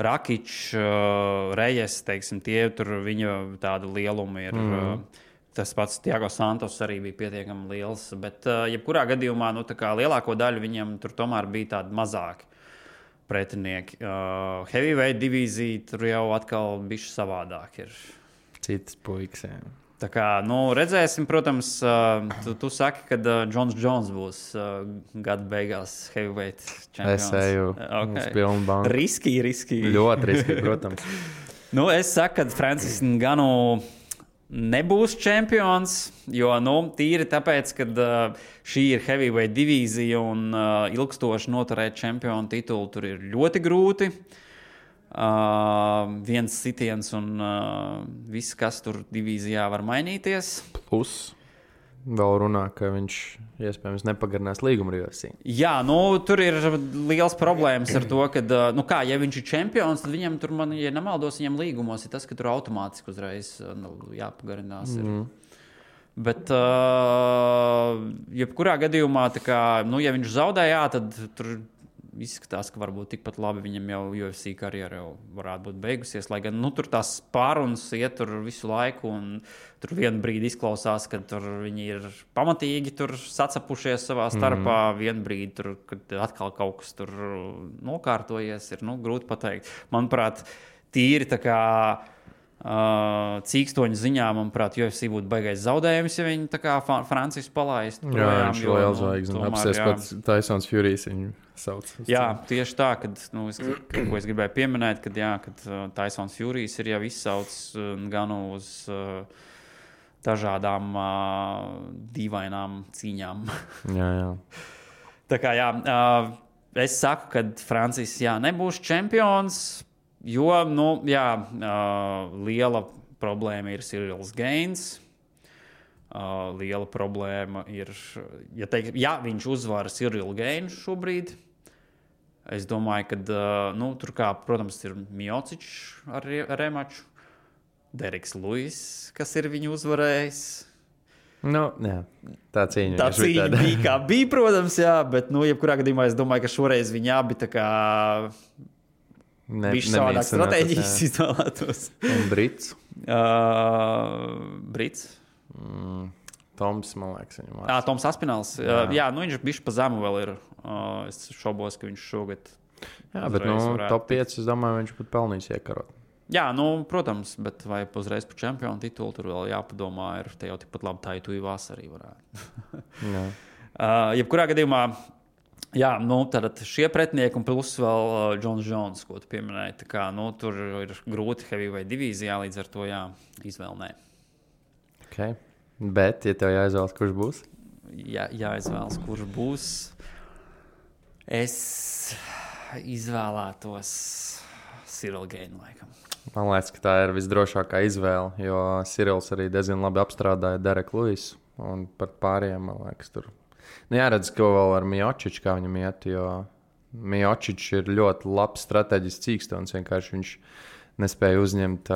Rakičs, Rejes, teiksim, tie tur viņa tāda lieluma ir. Tas pats Thiago Santos arī bija pietiekami liels, bet jebkurā gadījumā tā kā lielāko daļu viņam tur tomēr bija tādi mazāki pretinieki. Heavyweight divīzija tur jau atkal bišķi savādāk ir. Citas puikas, jā. Tā kā, redzēsim, protams, tu saki, ka Jons Jones būs gada beigās heavyweight čempions. Es eju uz pilnu banku. Riski. Ļoti riski, protams. Es saku, ka Francis Ngannou nebūs čempions, jo tīri tāpēc, ka šī ir heavyweight divīzija un ilgstoši noturēt čempionu titulu tur ir ļoti grūti. Viens sitiens un viss, kas tur divīzijā var mainīties. Plus vēl runā, ka viņš iespējams nepagarinās līgumu ar UFC. Jā, tur ir liels problēmas ar to, ka, ja viņš ir čempions, tad viņam tur, ja nemaldos, viņam līgumos ir tas, ka tur automātiski uzreiz jāpagarinās. Bet, jebkurā gadījumā, ja viņš zaudēja, tad tur izskatās, ka varbūt tikpat labi viņam jau UFC karjera jau varētu būt beigusies, lai gan tur tās pārunas iet tur visu laiku, un tur vienu brīdi izklausās, ka tur viņi ir pamatīgi tur sacapušies savā starpā, vienu brīdi tur, kad atkal kaut kas tur nokārtojies, ir grūti pateikt. Manuprāt, tīri tā kā cīkstoņu ziņā, manuprāt, UFC būtu baigais zaudējums, ja viņi tā kā Francis palaist. Jā, viņš vēl zvaigznes. Apsies pats Tysons Furijas viņu sauc. Jā, tieši tā, ko es gribēju pieminēt, kad Tysons Furijas ir jau izsaucis gan uz dažādām dīvainām cīņām. Jā. Tā kā, es saku, ka Francis, nebūs čempions, jo, liela problēma ir Cyrils Gains. Liela problēma ir, ja viņš uzvar Cyrilu Gainu šobrīd, es domāju, ka tur, protams, ir Miocičs ar remaču, Deriks Luis, kas ir viņu uzvarējis. Jā, tā cīņa. Tā cīņa bija kā bija, protams, jā, bet, jebkurā gadījumā es domāju, ka šoreiz viņi abi tā kā viņš savādāk stratēģijas izvēlētos. Un Brits? Brits? Toms, man liekas, viņam vārds. Toms Aspināls. Jā, viņš bišķi pa zemu vēl ir. Es šaubos, ka viņš šogad. Jā, bet top 5, es domāju, viņš pat pelnīs iekarot. Jā, protams, bet vai uzreiz par čempionu titulu tur vēl jāpadomā, ir te jau tikpat labi tā, tu vasarī varētu. Jā. Jebkurā gadījumā, jā, tad šie pretinieki un plus vēl Džons Jones, ko tu pieminēji. Tā kā, tur ir grūti heavyweight divīzijā, līdz ar to izvēlnē. Okay. Bet, ja tev jāizvēlas, kurš būs? Jāizvēlas, kurš būs. Es izvēlētos Cyril Gane, laikam. Man liekas, ka tā ir visdrošākā izvēle, jo Cyrils arī diezgan labi apstrādāja Dereku Luisu. Un par pārējiem, man liekas, tur. Jāredz, ko vēl ar Miociču, kā viņam iet, jo Miocičs ir ļoti labs strateģisks cīkstons. Vienkārši viņš nespēja uzņemt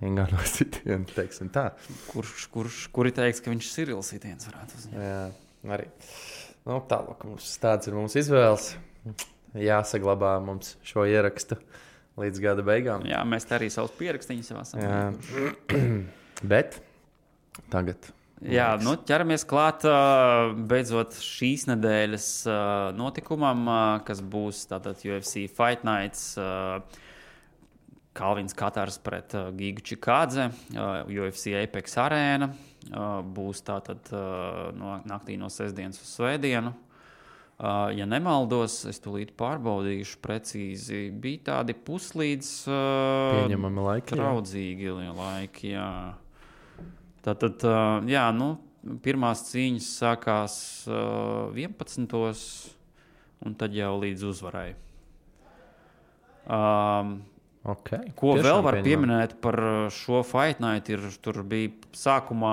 Ingano sitienu, teiksim tā. Kuri teiks, ka viņš Cyril sitiens varētu uzņemt? Jā, arī. Tālāk, tāds ir mums izvēles. Jāsaglabā mums šo ierakstu līdz gada beigām. Jā, mēs te arī savus pierakstīņus jau esam. Bet tagad. Jā, ķeramies klāt beidzot šīs nedēļas notikumam, kas būs tātad UFC Fight Nights, Kalvins Katars pret Gigu Čikādze, UFC Apex Arēna, būs tātad naktī no sestdienas uz svētdienu. Ja nemaldos, es tūlīt pārbaudīšu precīzi. Bija tādi puslīdz pieņemami laiki. Traudzīgi laiki, jā. Tātad, pirmās cīņas sākās 11. un tad jau līdz uzvarai. Okay. Ko Tiešām vēl var pieminēt par šo Fight Night? Tur bija sākumā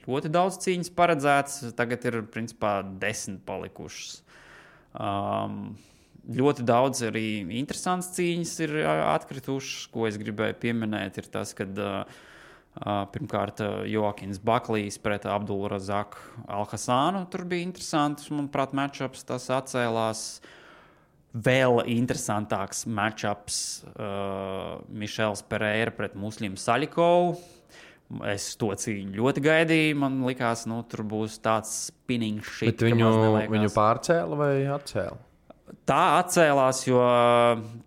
ļoti daudz cīņas paredzēts, tagad ir principā 10 palikušas. Ļoti daudz arī interesants cīņas ir atkritušas, ko es gribēju pieminēt, ir tas, kad pirmkārt Joakins Baklijs pret Abdulrazaku Alhasānu, tur bija interesants, manuprāt, matchups, tas atcēlās. Vēl interesantāks matchups Mišels Pereira pret Muslimu Saļikovu. Es to cīņu ļoti gaidīju. Man likās, tur būs tāds spinning shit. Bet viņu pārcēla vai atcēla? Tā atcēlās, jo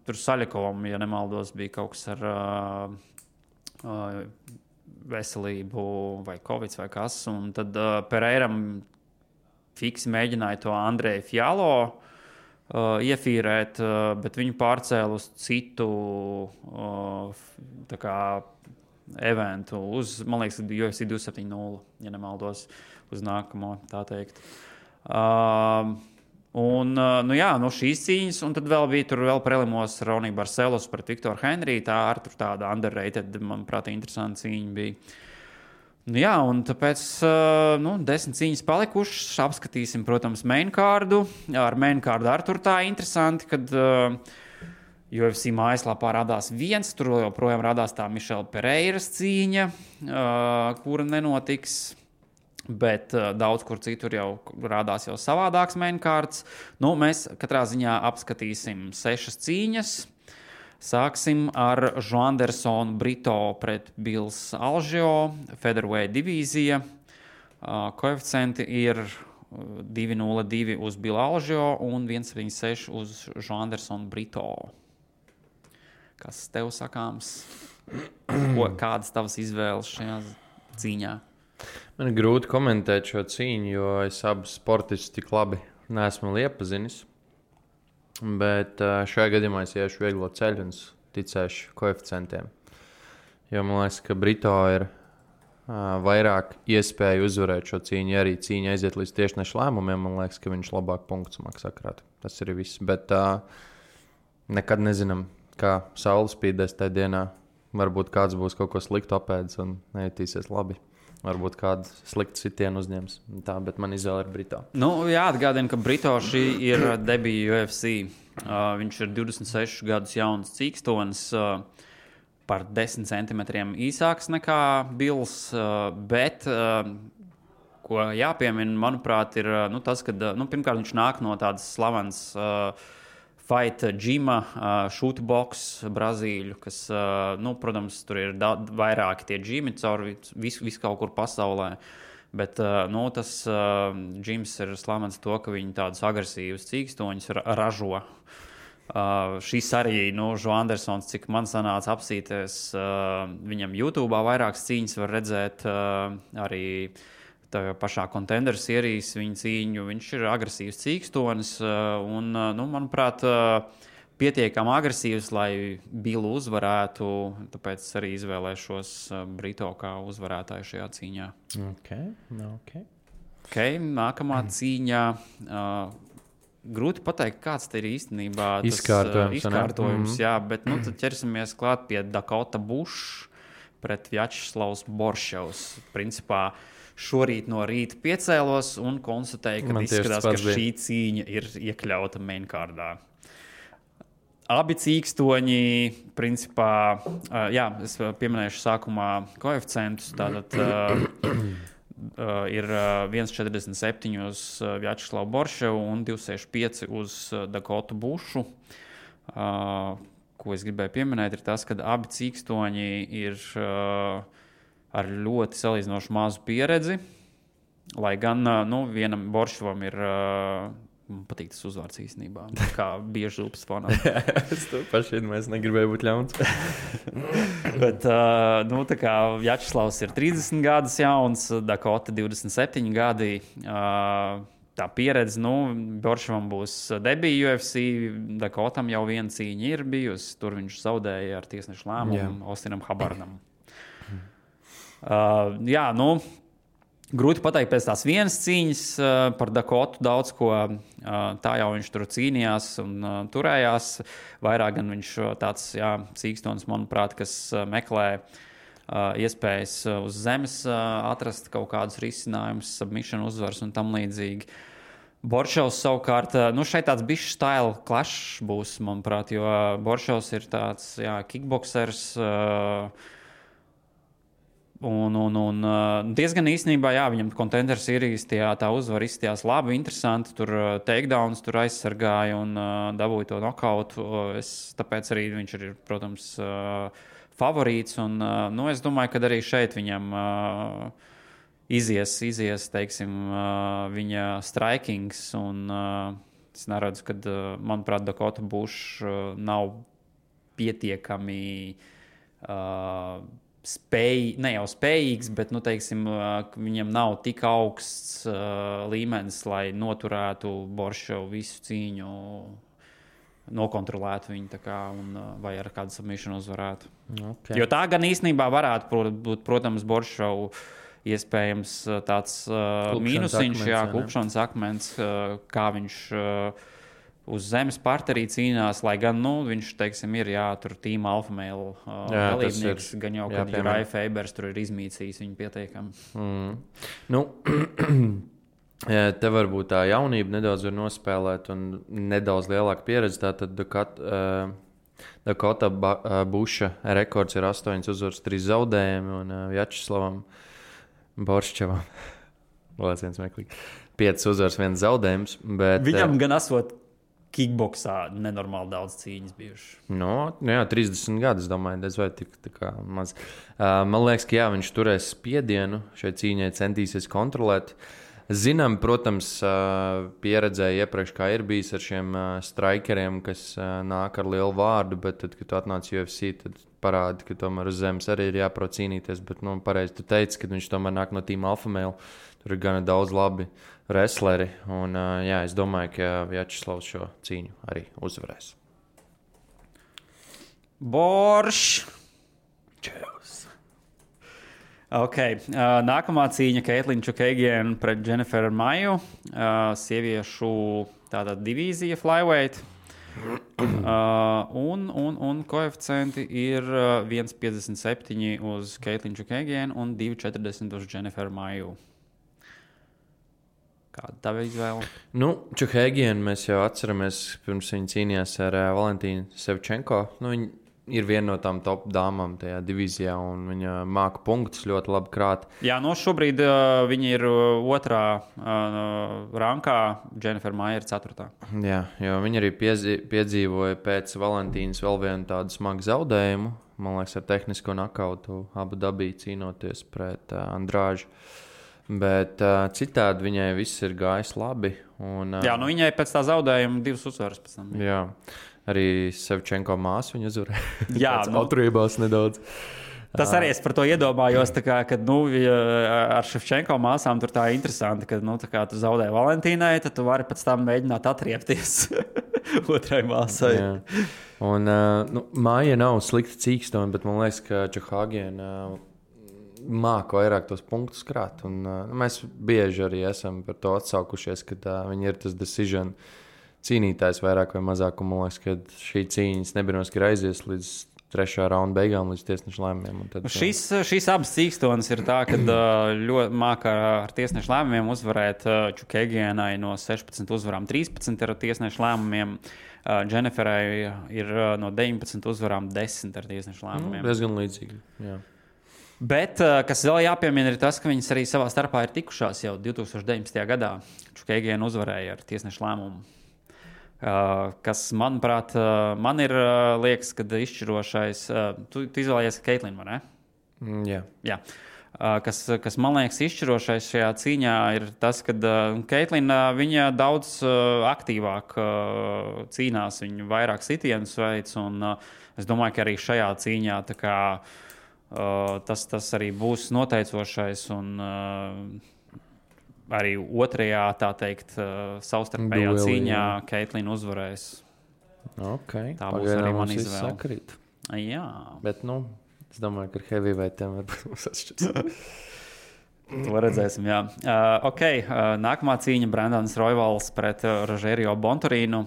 tur Saļikovam, ja nemaldos, bija kaut kas ar veselību vai covid vai kas. Un tad Pereiram fiksi mēģināja to Andreju Fjalo iefīrēt, bet viņu pārcēla uz citu tā kā eventu uz, man liekas, UFC 270, ja nemaldos, uz nākamo, tā teikt. Šīs cīņas, un tad vēl bija tur vēl prelimos Ronija Barcelos pret Viktoru Henriju, tā ar tur tāda underrated, manuprāt, interesanta cīņa bija. Un tāpēc 10 cīņas palikušas, apskatīsim, protams, mainkārdu. Ar mainkārdu ar tur tā interesanti, kad UFC mājaslapā radās viens, tur joprojām radās tā Mišela Pereiras cīņa, kura nenotiks, bet daudz kur citur jau radās jau savādāks mainkārds. Mēs katrā ziņā apskatīsim 6 cīņas. Sāksim ar Joandersonu Brito pret Bills Alžio, featherweight divīzija. Koeficienti ir 2.02 uz Billu Alžio un 1.76 uz Joandersonu Brito. Kas tev sakāms? Kādas tavas izvēles šajā cīņā? Man ir grūti komentēt šo cīņu, jo es abus sportistus tik labi neesmu iepazinis. Bet šajā gadījumā es iešu vieglo ceļu un ticēšu koeficientiem. Jo man liekas, ka Brito ir vairāk iespēju uzvarēt šo cīņu. Ja arī cīņa aiziet līdz tiešnešu lēmumiem, man liekas, ka viņš labāk punktus maksā krāt. Tas ir viss. Bet nekad nezinām, kā saule spīdēs tajā dienā. Varbūt kāds būs kaut ko sliktu apēdis un nejutīsies labi. Varbūt kādu sliktu sitienu uzņems. Tā, bet man izvēle ir Brito. Jāatgādina, ka Brito šī ir debija UFC. Viņš ir 26 gadus jauns cīkstonis, par 10 centimetriem īsāks nekā Bills. Bet, ko jāpiemina, manuprāt, ir tas, ka pirmkārt viņš nāk no tādas slavenas Fight Gima, Shootbox, Brazīļu, kas, protams, tur ir vairāki tie džimi cauri visu kaut kur pasaulē. Bet tas džims ir slavens to, ka viņi tādus agresīvus cīkstoņus ražo. Šis arī, Joandersons, cik man sanāca apsīties, viņam YouTube vairākas cīņas var redzēt arī tā pašā Contender Series viņa cīņu. Viņš ir agresīvs cīkstonis un, manuprāt, pietiekami agresīvs, lai Billu uzvarētu. Tāpēc arī izvēlēšos Brito kā uzvarētāju šajā cīņā. Okay, nākamā cīņā. Grūti pateikt, kāds te ir īstenībā tas izkārtojums. Jā, bet tad ķersimies klāt pie Dakota Bush pret Vjačeslavs Borševs. Principā šorīt no rīta piecēlos un konstatēju, ka izskatās, ka šī cīņa ir iekļauta mainkārdā. Abi cīkstoņi, principā, es pieminēšu sākumā koeficientus, tātad ir 1,47 uz Vjačeslavu Borševu un 2,65 uz Dakotu Bušu. Ko es gribēju pieminēt, ir tas, ka abi cīkstoņi ir ar ļoti salīdzinoši mazu pieredzi, lai gan vienam Borševam ir, man patīk tas uzvārds īstenībā, kā bieži upes fonā. Es to paši mēs negribēju būt ļauns. Bet, tā kā Vjačeslavs ir 30 gadus jauns, Dakota 27 gadi, tā pieredze, Borševam būs debija UFC, Dakotam jau viena cīņa ir bijusi, tur viņš zaudēja ar tiesnešu lēmumu Austinam Habardam. Grūti pateikt pēc tās vienas cīņas par Dakotu daudz ko, tā jau viņš tur cīnījās un turējās, vairāk gan viņš tāds cīkstonis, manuprāt, kas meklē iespējas uz zemes atrast kaut kādus risinājumus, submission uzvaras un tam līdzīgi. Borševs savukārt, šeit tāds bišķi style clash būs, manuprāt, jo Borševs ir tāds, kickboksers, un diezgan īstenībā, viņam Contender Series tā uzvara izstījās labi, interesanti, tur takedowns tur aizsargāja un dabūja to nokautu, tāpēc arī viņš ir, protams, favorīts, un es domāju, ka arī šeit viņam izies, teiksim, viņa strikings, un es neredzu, ka, manuprāt, Dakota Bush nav pietiekami ne jau spējīgs, bet, teiksim, viņam nav tik augsts līmenis, lai noturētu Borševu visu cīņu, nokontrolētu viņu, vai ar kādu submission uzvarētu. Okay. Jo tā gan īstenībā varētu būt, protams, Borševu iespējams tāds mīnusiņš, klupšanas akmens, kā viņš uz zemes parterī cīnās, lai gan, viņš, teiksim, ir, tur Team Alpha Male dalībnieks, gan jau, kad Rai Fabers tur ir izmīcījis viņu pietiekami. Te varbūt tā jaunība nedaudz var nospēlēt un nedaudz lielāka pieredze, tātad Dakota Buša rekords ir 8 uzvaras, 3 zaudējumi, un Vjačeslavam Borševam 5 uzvaras, 1 zaudējums. Bet, viņam gan esot kickboksā nenormāli daudz cīņas bijuši. 30 gadus, domāju, vai tik tā maz. Man liekas, ka viņš turēs spiedienu šai cīņai, centīsies kontrolēt. Zinām, protams, pieredzēja iepriekš, kā ir bijis ar šiem strikeriem, kas nāk ar lielu vārdu, bet tad, kad tu atnāc UFC, tad parādi, ka tomēr uz zemes arī ir jāprot cīnīties, bet, pareizi tu teici, ka viņš tomēr nāk no Team Alpha Male, tur ir gana daudz labi wrestleri, un, es domāju, ka Vjačeslavs šo cīņu arī uzvarēs. Borš! Čevs! Nākamā cīņa Caitlin Chookagian pret Jennifer Maiju, sieviešu tātad divīzija flyweight. Un koeficienti ir 1,57 uz Caitlin Chookagian un 2,40 uz Jennifer Maiju. Kāda tava izvēle? Chookagian mēs jau atceramies, pirms viņa cīnījās ar Valentīnu Sevčenko. Viņa ir viena no tām top dāmām tajā divīzijā, un viņa māka punktus ļoti labi krāt. Jā, šobrīd viņa ir 2. rankā, Jennifer Maija ir 4. Jā, jo viņa arī piedzīvoja pēc Valentīnas vēl vienu tādu smagu zaudējumu. Man liekas, ar tehnisko nokautu Abu Dabī cīnoties pret Andrāžu. Bet citādi viņai viss ir gājis labi. Un, viņai pēc tā zaudējuma 2 uzvaras pēc tam. Jā. Arī Sevčenko māsu viņa uzvarēja. Jā, atrībās nedaudz. Tas arī es par to iedomājos, kad ar Ševčenko māsām tur tā interesanti, ka tā kā tu zaudēji Valentīnai, tad tu vari pēc tam mēģināt atriepties otrai māsai. Jā. Un Māja nav slikta cīkstone, bet man liekas, ka Čehāgiena māca vairāk tos punktus krāt. Un, mēs bieži arī esam par to atsaukušies, ka viņi ir tas decision cīnītājs vairāk vai mazāk. Un man liekas, ka šī cīņas nebinos, ka aizies līdz 3. raunda beigām, līdz tiesneša lēmumiem. Tad, šīs abas cīkstonas ir tā, ka ļoti māca ar tiesneša lēmumiem uzvarēt Čukēgienai no 16 uzvarām 13 ar tiesneša lēmumiem. Dženiferai ir no 19 uzvarām 10 ar tiesneša lēmumiem. Diezgan līdzīgi, jā. Bet, kas vēl jāpiemina, ir tas, ka viņas arī savā starpā ir tikušās jau 2019. gadā. Čukēgiena uzvarēja ar tiesneša lēmumu. Kas, manuprāt, man ir liekas, ka izšķirošais. Tu izvēlējies Keitlinu, vai ne? Jā. Kas man liekas izšķirošais šajā cīņā ir tas, ka Keitlina viņa daudz aktīvāk cīnās, viņa vairāk sitienus veids, un es domāju, ka arī šajā cīņā tā kā tas arī būs noteicošais, un arī otrajā, tā teikt, savstarpējā cīņā Keitlina uzvarēs. Okay. Tā būs arī mana izvēle. Jā. Bet, es domāju, ka ar heavyweightem varbūt mums atšķirs. To redzēsim, jā. Nākamā cīņa Brandons Royvals pret Rogerio Bontorīnu.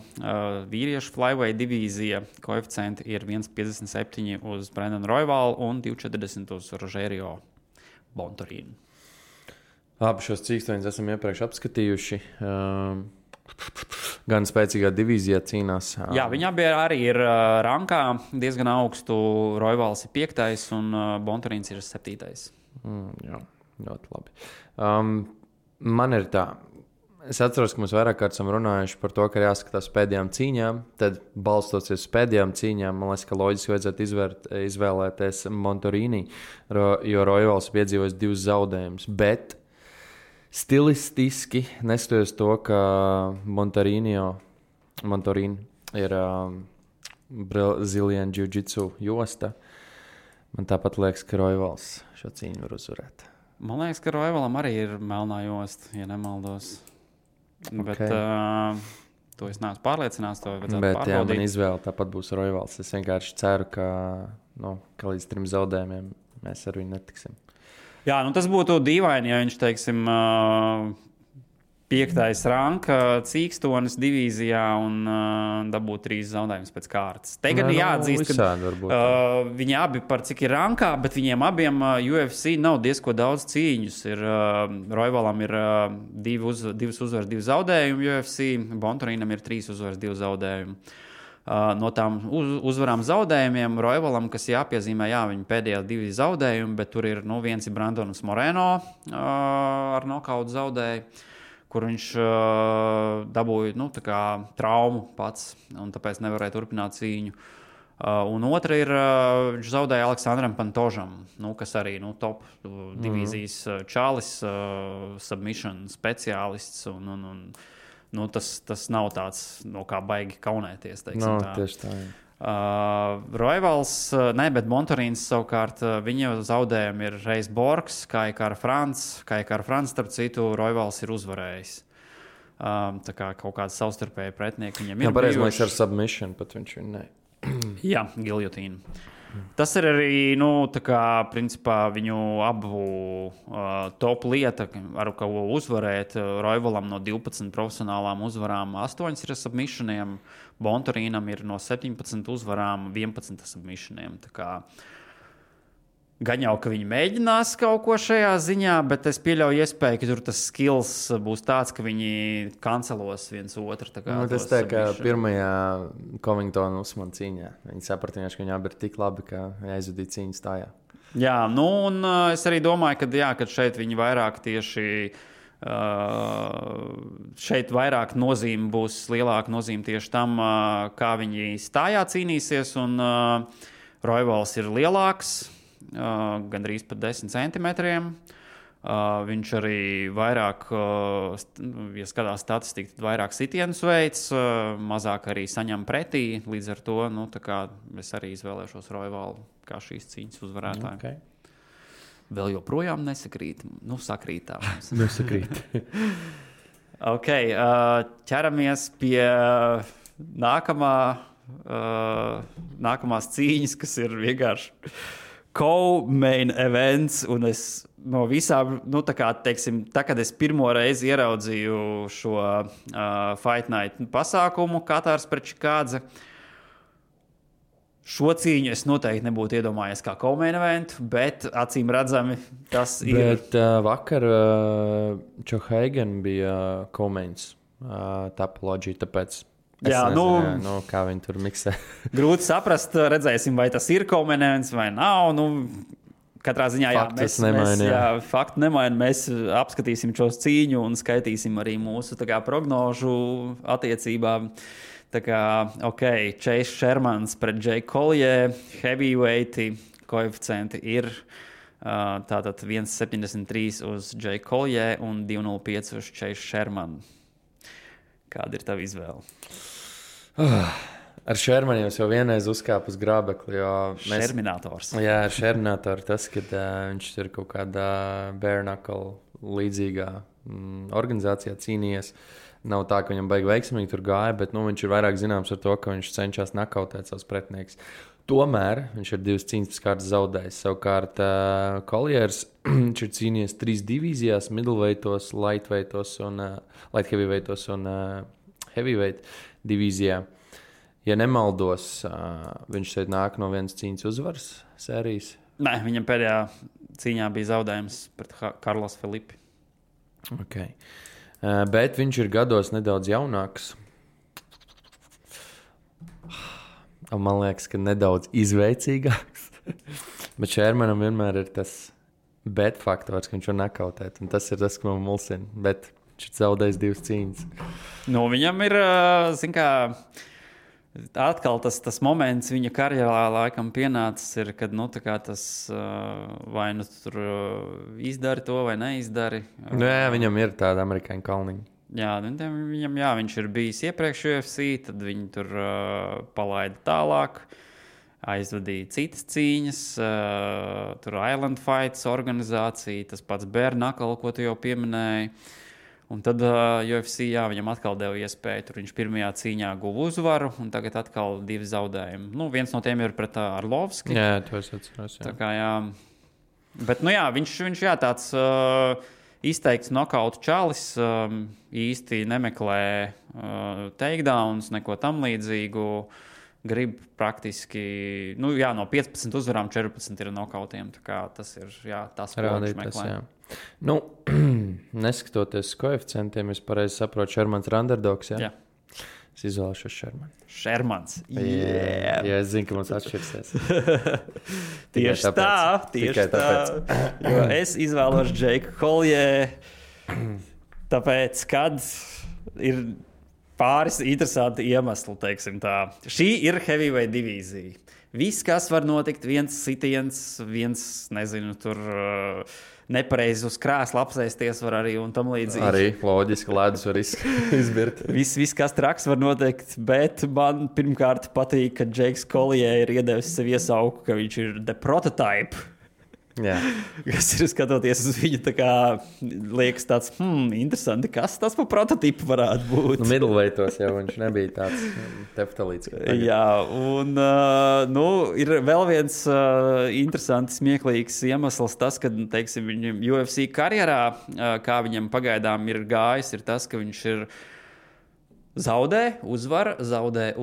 Vīriešu flyweight divīzija. Koeficienti ir 1,57 uz Brandonu Royvalu un 2,40 uz Rogerio Bontorīnu. Abi šos cīkstoņus esam iepriekš apskatījuši. Gan spēcīgā divīzijā cīnās. Jā, viņi abi arī ir rankā diezgan augstu. Royvals ir 5. un Bontorīns ir 7. Jā, ļoti labi. Man ir tā. Es atceros, ka mēs vairāk kārt esam runājuši par to, ka ir jāskatās pēdējām cīņām. Tad, balstoties uz pēdējām cīņām, man liekas, ka loģiski vajadzētu izvēlēties Bontorīni, jo Royvals piedzīvojis 2 zaudējumus. Bet stilistiski, neskatoties to, ka Bontorīni ir Brazilian Jiu-Jitsu josta, man tāpat liekas, ka Royvals šo cīņu var uzvarēt. Man liekas, ka Royvalam arī ir melnā josta, ja nemaldos. Bet to es neesmu pārliecināts, to vajadzētu pārbaudīt. Jā, man izvēle tāpat būs Royvals. Es vienkārši ceru, ka līdz 3 zaudējumiem mēs ar viņu netiksim. Jā, tas būtu dīvaini, ja viņš, teiksim, 5. ranka cīkstonis divīzijā un dabūtu 3 zaudējumus pēc kārtas. Te gan jāatzīst, ka viņi abi par cik ir rankā, bet viņiem abiem UFC nav diezko daudz cīņus. Royvalam ir 2 uzvaras, 2 zaudējumi UFC, Bontorīnam ir 3 uzvaras, 2 zaudējumi. No tām uzvarām zaudējumiem Royvalam, kas jāpiezīmē, viņa pēdējā 2 zaudējumi, bet tur ir viens ir Brandons Moreno ar nokautu zaudēju, kur viņš dabūja traumu pats, un tāpēc nevarēja turpināt cīņu. Un otra ir, viņš zaudēja Aleksandram Pantožam, kas arī top divīzijas čalis, submission speciālists, un tas nav tāds, kā baigi kaunēties. Tieši tā. Royvals, bet Bontorīns savukārt, viņa zaudējumi ir reiz Borgs, kā ar Frants, starp citu, Royvals ir uzvarējis. Tā kā kaut kāds savstarpēji pretinieki viņam ir. Pareizi, man ar submission, pat viņš viņu ne. Jā, giljotīna. Tas ir arī, principā viņu abu top lieta, ar ko uzvarēt. Royvalam no 12 profesionālām uzvarām 8 ir submissioniem, Bontorīnam ir no 17 uzvarām 11 submissioniem. Tā kā gan jau, ka viņi mēģinās kaut ko šajā ziņā, bet es pieļauju iespēju, ka tur tas skills būs tāds, ka viņi kancelos viens otru. Tas tā kā pirmajā Covingtona Usmana cīņā. Viņi saprata, ka viņi abi ir tik labi, ka aizvadīja cīņu stājā. Jā, un es arī domāju, ka šeit viņi vairāk tieši šeit vairāk nozīme būs, lielāka nozīme tieši tam, kā viņi stājā cīnīsies, un Royvals ir lielāks, gandrīz pat 10 centimetriem. Viņš arī vairāk, ja skatās statistiku, tad vairāk sitienus veids, mazāk arī saņem pretī. Līdz ar to es arī izvēlēšos Royvalu kā šīs cīņas uzvarētāju. Okay. Vēl joprojām nesakrīt. Sakrīt tā. Nesakrīt. Ok, ķeramies pie nākamās cīņas, kas ir vienkārši co-main events, un es no visām, kad es pirmo reizi ieraudzīju šo Fight Night pasākumu, Katārs pret Čikādze, šo cīņu es noteikti nebūtu iedomājies kā co-main event, bet acīm redzami tas ir. Bet vakar Čohaigen bija co-mains Tapology, tāpēc kā viņi tur miksē. Grūti saprast, redzēsim, vai tas ir co-main vai nav. Katrā ziņā faktu nemaina. Mēs apskatīsim šo cīņu un skaitīsim arī mūsu prognožu attiecībām. Chase Shermans pret Jake Collier, heavyweighti, koeficienti ir tātad 1,73 uz Jake Collier un 2,05 uz Chase Sherman. Kāda ir tava izvēle? Ar Shermanu jau vienreiz uzkāpa uz grābekli. Šerminators. Jā, ar Šerminatoru tas, kad viņš ir kaut kādā bare knuckle līdzīgā organizācijā cīnījies. Nav tā, ka viņam baigi veiksmīgi tur gāja, bet viņš ir vairāk zināms ar to, ka viņš cenšas nakautēt savus pretinieks. Tomēr viņš ir 2 cīņas pēc kārtas zaudējis. Savukārt Colliers viņš ir cīnījies 3 divīzijās, middleweightos, light heavyweightos un heavyweight divīzijā. Ja nemaldos, viņš šeit nāk no vienas cīņas uzvaras sērijas. Nē, viņam pēdējā cīņā bija zaudējums pret Karlos Felipi. Okay. Bet viņš ir gados nedaudz jaunāks. Man liekas, ka nedaudz izveicīgāks. Bet Shermanam vienmēr ir tas bet faktors, ka viņš var nakautēt. Un tas ir tas, kas man mulsina. Bet viņš ir zaudējis 2 cīņas. Viņam ir, atkal tas moments viņa karjerā laikam pienācis, kad tas vai tur izdari to vai neizdari. Jā, viņam ir tāda amerikāņu kalniņa. Jā, viņš ir bijis iepriekš UFC, tad viņi tur palaida tālāk, aizvadīja citas cīņas, tur Island Fights organizācija, tas pats bare knuckle, ko tu jau pieminēji. Un tad UFC viņam atkal deva iespēju, tur viņš pirmajā cīņā guva uzvaru, un tagad atkal 2 zaudējumi. Viens no tiem ir pret Arlovski. Jā, to es atceros. Tā kā Bet, viņš tāds izteikts nokautu čalis, īsti nemeklē takedowns, neko tam līdzīgu. Grib praktiski, no 15 uzvarām 14 ir nokautiem. Tā kā tas ir, tas, ko viņš meklē. Neskatoties koeficientiem, es pareizi saprotu, Shermans ir underdogs, jā? Jā. Es izvēlēšos Shermanu. Shermans. Jā, es zinu, ka mums atšķirsies. Tieši tā. Jo es izvēlos Jake Collier, tāpēc, kad ir pāris interesanti iemesli, teiksim tā. Šī ir heavyweight divīzija. Viss, kas var notikt, viens sitiens, tur nepareizi uz krēsla apsēsties var arī un tam līdzīgi. Arī loģiski ledus var izbirt. Viss, kas traks var notikt, bet man pirmkārt patīk, ka Jakes Collier ir iedevis sev iesauku, ka viņš ir the prototype. Jā. Kas ir skatoties uz viņu, tā kā liekas tāds, interesanti, kas tas par prototipu varētu būt. Middleweightos jau viņš nebija tāds teftalīts. Jā, un ir vēl viens interesants, smieklīgs iemesls tas, ka, teiksim, viņam UFC karjerā, kā viņam pagaidām ir gājis, ir tas, ka viņš ir zaudē, uzvar. Tā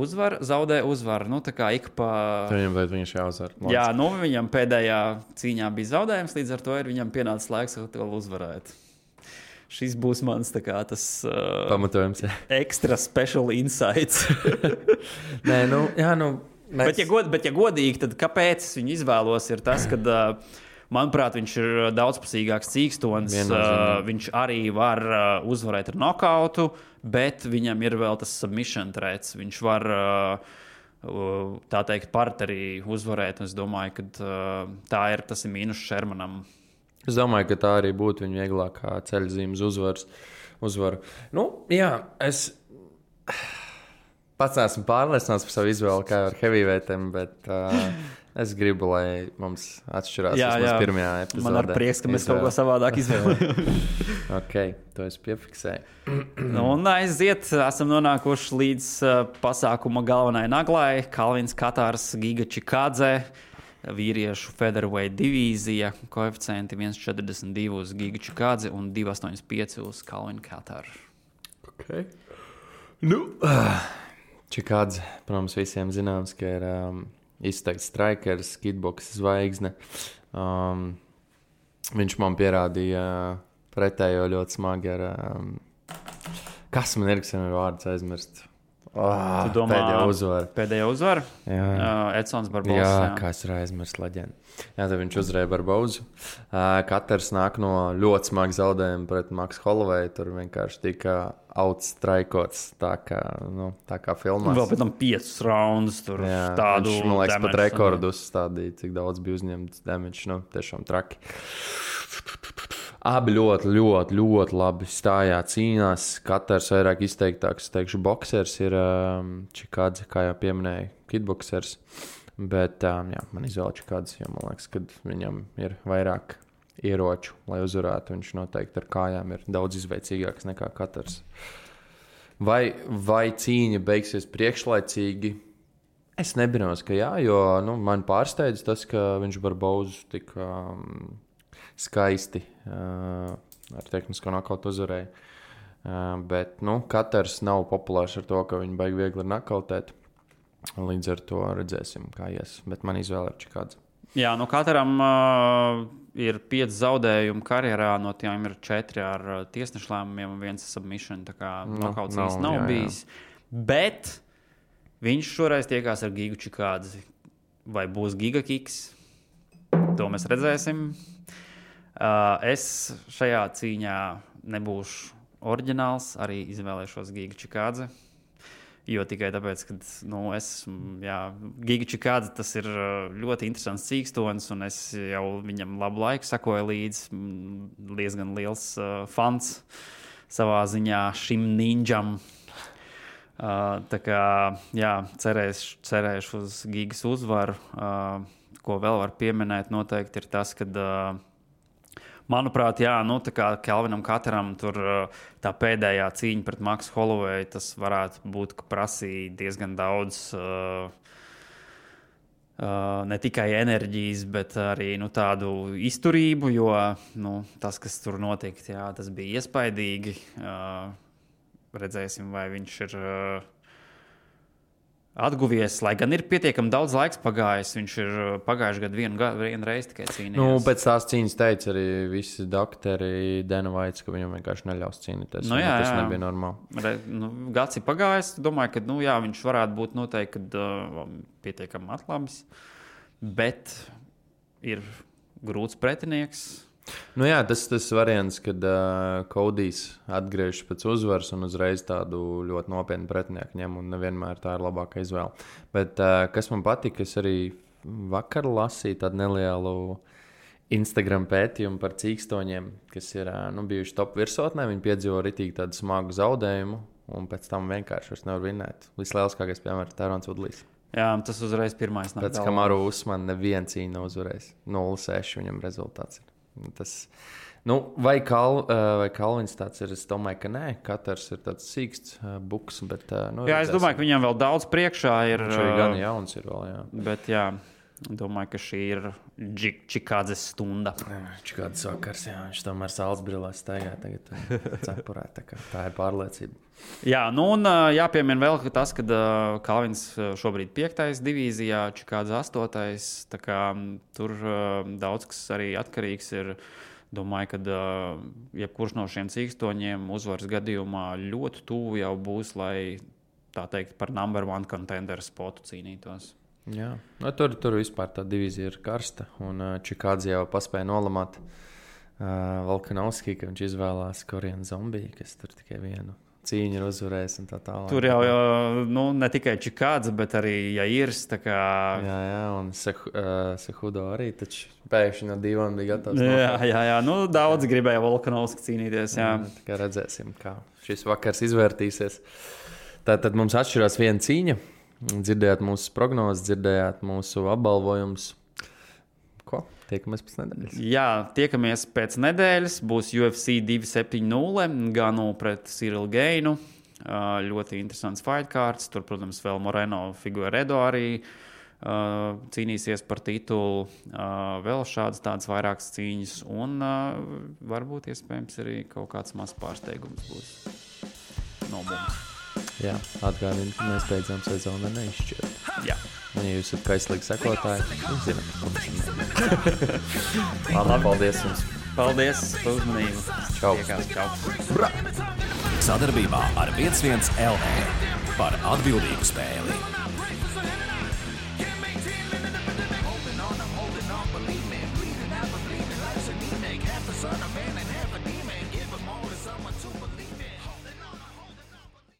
kā ik pa... Viņš jāuzvar. Jā, viņam pēdējā cīņā bija zaudējums, līdz ar to ir viņam pienācis laiks vēl uzvarēt. Šis būs mans tas pamatojums, jā. Extra special insights. Nē, Bet, ja godīgi, tad kāpēc es viņu izvēlos, ir tas, ka, manuprāt, viņš ir daudzpusīgāks cīkstonis. Viņš arī var uzvarēt ar nokautu, bet viņam ir vēl tas submission threats. Viņš var, tā teikt, partnerī uzvarēt. Es domāju, ka tas ir mīnus Shermanam. Es domāju, ka tā arī būtu viņa vieglākā ceļzīmes uzvaru. Nu, jā, es pats esmu pārliecināts par savu izvēli, kā ar heavyweightem, bet es gribu, lai mums atšķirās vismaz pirmajā epizodē. Man ar prieks, ka mēs kaut ko savādāk izvēlējām. Ok, to es piefiksēju. Un aiziet, esam nonākuši līdz pasākuma galvenajai naglai. Kalvins Katārs, Giga Čikādze. Vīriešu featherweight divīzija, koeficienti 1,42 uz Giga Čikādzi un 2,85 uz Kalvinu Katāru. Okay. Nu, Čikādze, protams, visiem zināms, ka ir izteikts strikers, kitboks zvaigzne. Viņš man pierādīja pretējo ļoti smagi ar... kas man ir, kas ir vārds aizmirst? Tu domā, pēdējā uzvara? Edsons Barbosa. Jā, kā es arī aizmirstu leģendu. Jā, tad viņš uzvarēja Barbosu. Katrs nāk no ļoti smaga zaudējuma pret Maksu Holloway. Tur vienkārši tika outstrikots tā kā filmās. Vēl pēc tam 5 raundus tur tādu. Viņš, man liekas, pat rekordu uzstādīja, cik daudz bija uzņemts damage. Nu, tiešām traki. Abi ļoti labi stājās, cīnās. Katrs vairāk izteiktāks, teikšu, boksers ir Čikādze, kā jau pieminēja, kitboksers. Bet man izvēle Čikādze, jo man liekas, ka viņam ir vairāk ieroču, lai uzvarētu. Viņš noteikti ar kājām ir daudz izveicīgāks nekā katrs. Vai cīņa beigsies priekšlaicīgi? Es nebrīnos, ka jā, jo man pārsteidz tas, ka viņš Barbosu tik... skaisti ar tehnisko nokautu uzvarēja. Bet katrs nav populārs ar to, ka viņi baigi viegli ir nokautēt. Līdz ar to redzēsim, kā ies. Bet man izvēle ir Čikādze. Jā, katram ir 5 zaudējumi karjerā, no tiem ir 4 ar tiesnešu lēmumiem un 1 submission. Tā kā nokauts īsti nav bijis. Bet viņš šoreiz tiekās ar Gigu Čikādzi. Vai būs Giga kiks? To mēs redzēsim. Es šajā cīņā nebūšu oriģināls, arī izvēlēšos Giga Čikādzi. Jo tikai tāpēc, ka Giga Čikādze tas ir ļoti interesants cīkstonis, un es jau viņam labu laiku sakoju līdzi. Diezgan liels fans savā ziņā šim ninjam. Tā kā cerēšu uz Gigas uzvaru. Ko vēl var pieminēt noteikti ir tas, ka manuprāt, tā kā Kalvinam Kataram tur tā pēdējā cīņa pret Maksu Holloway, tas varētu būt, ka prasīja diezgan daudz ne tikai enerģijas, bet arī tādu izturību, jo tas, kas tur notika, tas bija iespaidīgi. Redzēsim, vai viņš ir atguvies, lai gan ir pietiekami daudz laiks pagājis. Viņš ir pagājuši gadu vienu reizi tikai cīnījies. Pēc tās cīņas teica arī visi doktori Dana Vaits, ka viņam vienkārši neļaus cīnīties. Tas nebija normāli. Gads ir pagājis. Domāju, ka viņš varētu būt noteikti pietiekami atlabis. Bet ir grūts pretinieks. Tas variants, kad Kodijs atgriežas pēc uzvaras un uzreiz tādu ļoti nopietnu pretinieku ņem, un nevienmēr tā ir labākā izvēle. Bet kas man patika, es arī vakar lasīju tādu nelielu Instagram pētījumu par cīkstoņiem, kas ir bijuši top virsotnē. Viņi piedzīvo ritīgi tādu smagu zaudējumu, un pēc tam vienkārši vairs nevar vinēt. Vislielākais piemērs ir Tērons Vudlijs. Jā, tas uzreiz pirmais nāk. Pēc Kamaru Usmana neviena cīņa nav uzvarējis. 0-6 viņam rezultāts ir. Vai Kalvins tāds ir? Es domāju, ka nē. Katrs ir tāds sīksts buks. Bet, es domāju, ka viņam vēl daudz priekšā ir. Viņš arī gan jauns ir vēl, jā. Bet domāju, ka šī ir Čikādzes stunda. Čikādzes vakars, jā. Viņš tomēr saules brillēs staigā tagad cepurē. Tā ir pārliecība. Jā, un jāpiemina vēl tas, ka Kalvins šobrīd 5. divīzijā, Čikādze 8. Tā kā tur daudz kas arī atkarīgs ir. Domāju, ka jebkurš no šiem cīkstoņiem uzvaras gadījumā ļoti tuvu jau būs, lai tā teikt par number 1 contender spotu cīnītos. Jā, tur vispār tā divīzija ir karsta, un Čikādze jau paspēja nolamāt Volkanovski, ka viņš izvēlās Korean Zombiju, kas tur tikai vienu cīņu ir uzvarējis un tā tālāk. Tur jau ne tikai Čikādze, bet arī Jairs. Jā, un Sehudo arī taču pēkšņi no divām bija gatavs. Jā. Daudz gribēja Volkanovski cīnīties. Jā. Tā kā redzēsim, kā šis vakars izvērtīsies. Tātad mums atšķirās viena cīņa. Dzirdējāt mūsu prognozes, dzirdējāt mūsu apbalvojumus. Ko? Tiekamies pēc nedēļas. Jā, tiekamies pēc nedēļas. Būs UFC 270 Ganu pret Cyril Gainu. Ļoti interesants fight cards. Tur, protams, vēl Moreno Figueiredo arī cīnīsies par titulu. Vēl tādas vairākas cīņas. Un varbūt iespējams arī kaut kāds mazs pārsteigums būs no mums. Jā, atgādinu, ka mēs beidzām sezonu neizšķirt. Jā. Un, ja jūs esat kaislīgi sekotāji, jūs zināt, ko mēs Labi, paldies jums. Paldies par uzmanību. Čau. Sadarbībā ar 11 LV par atbildīgu spēli.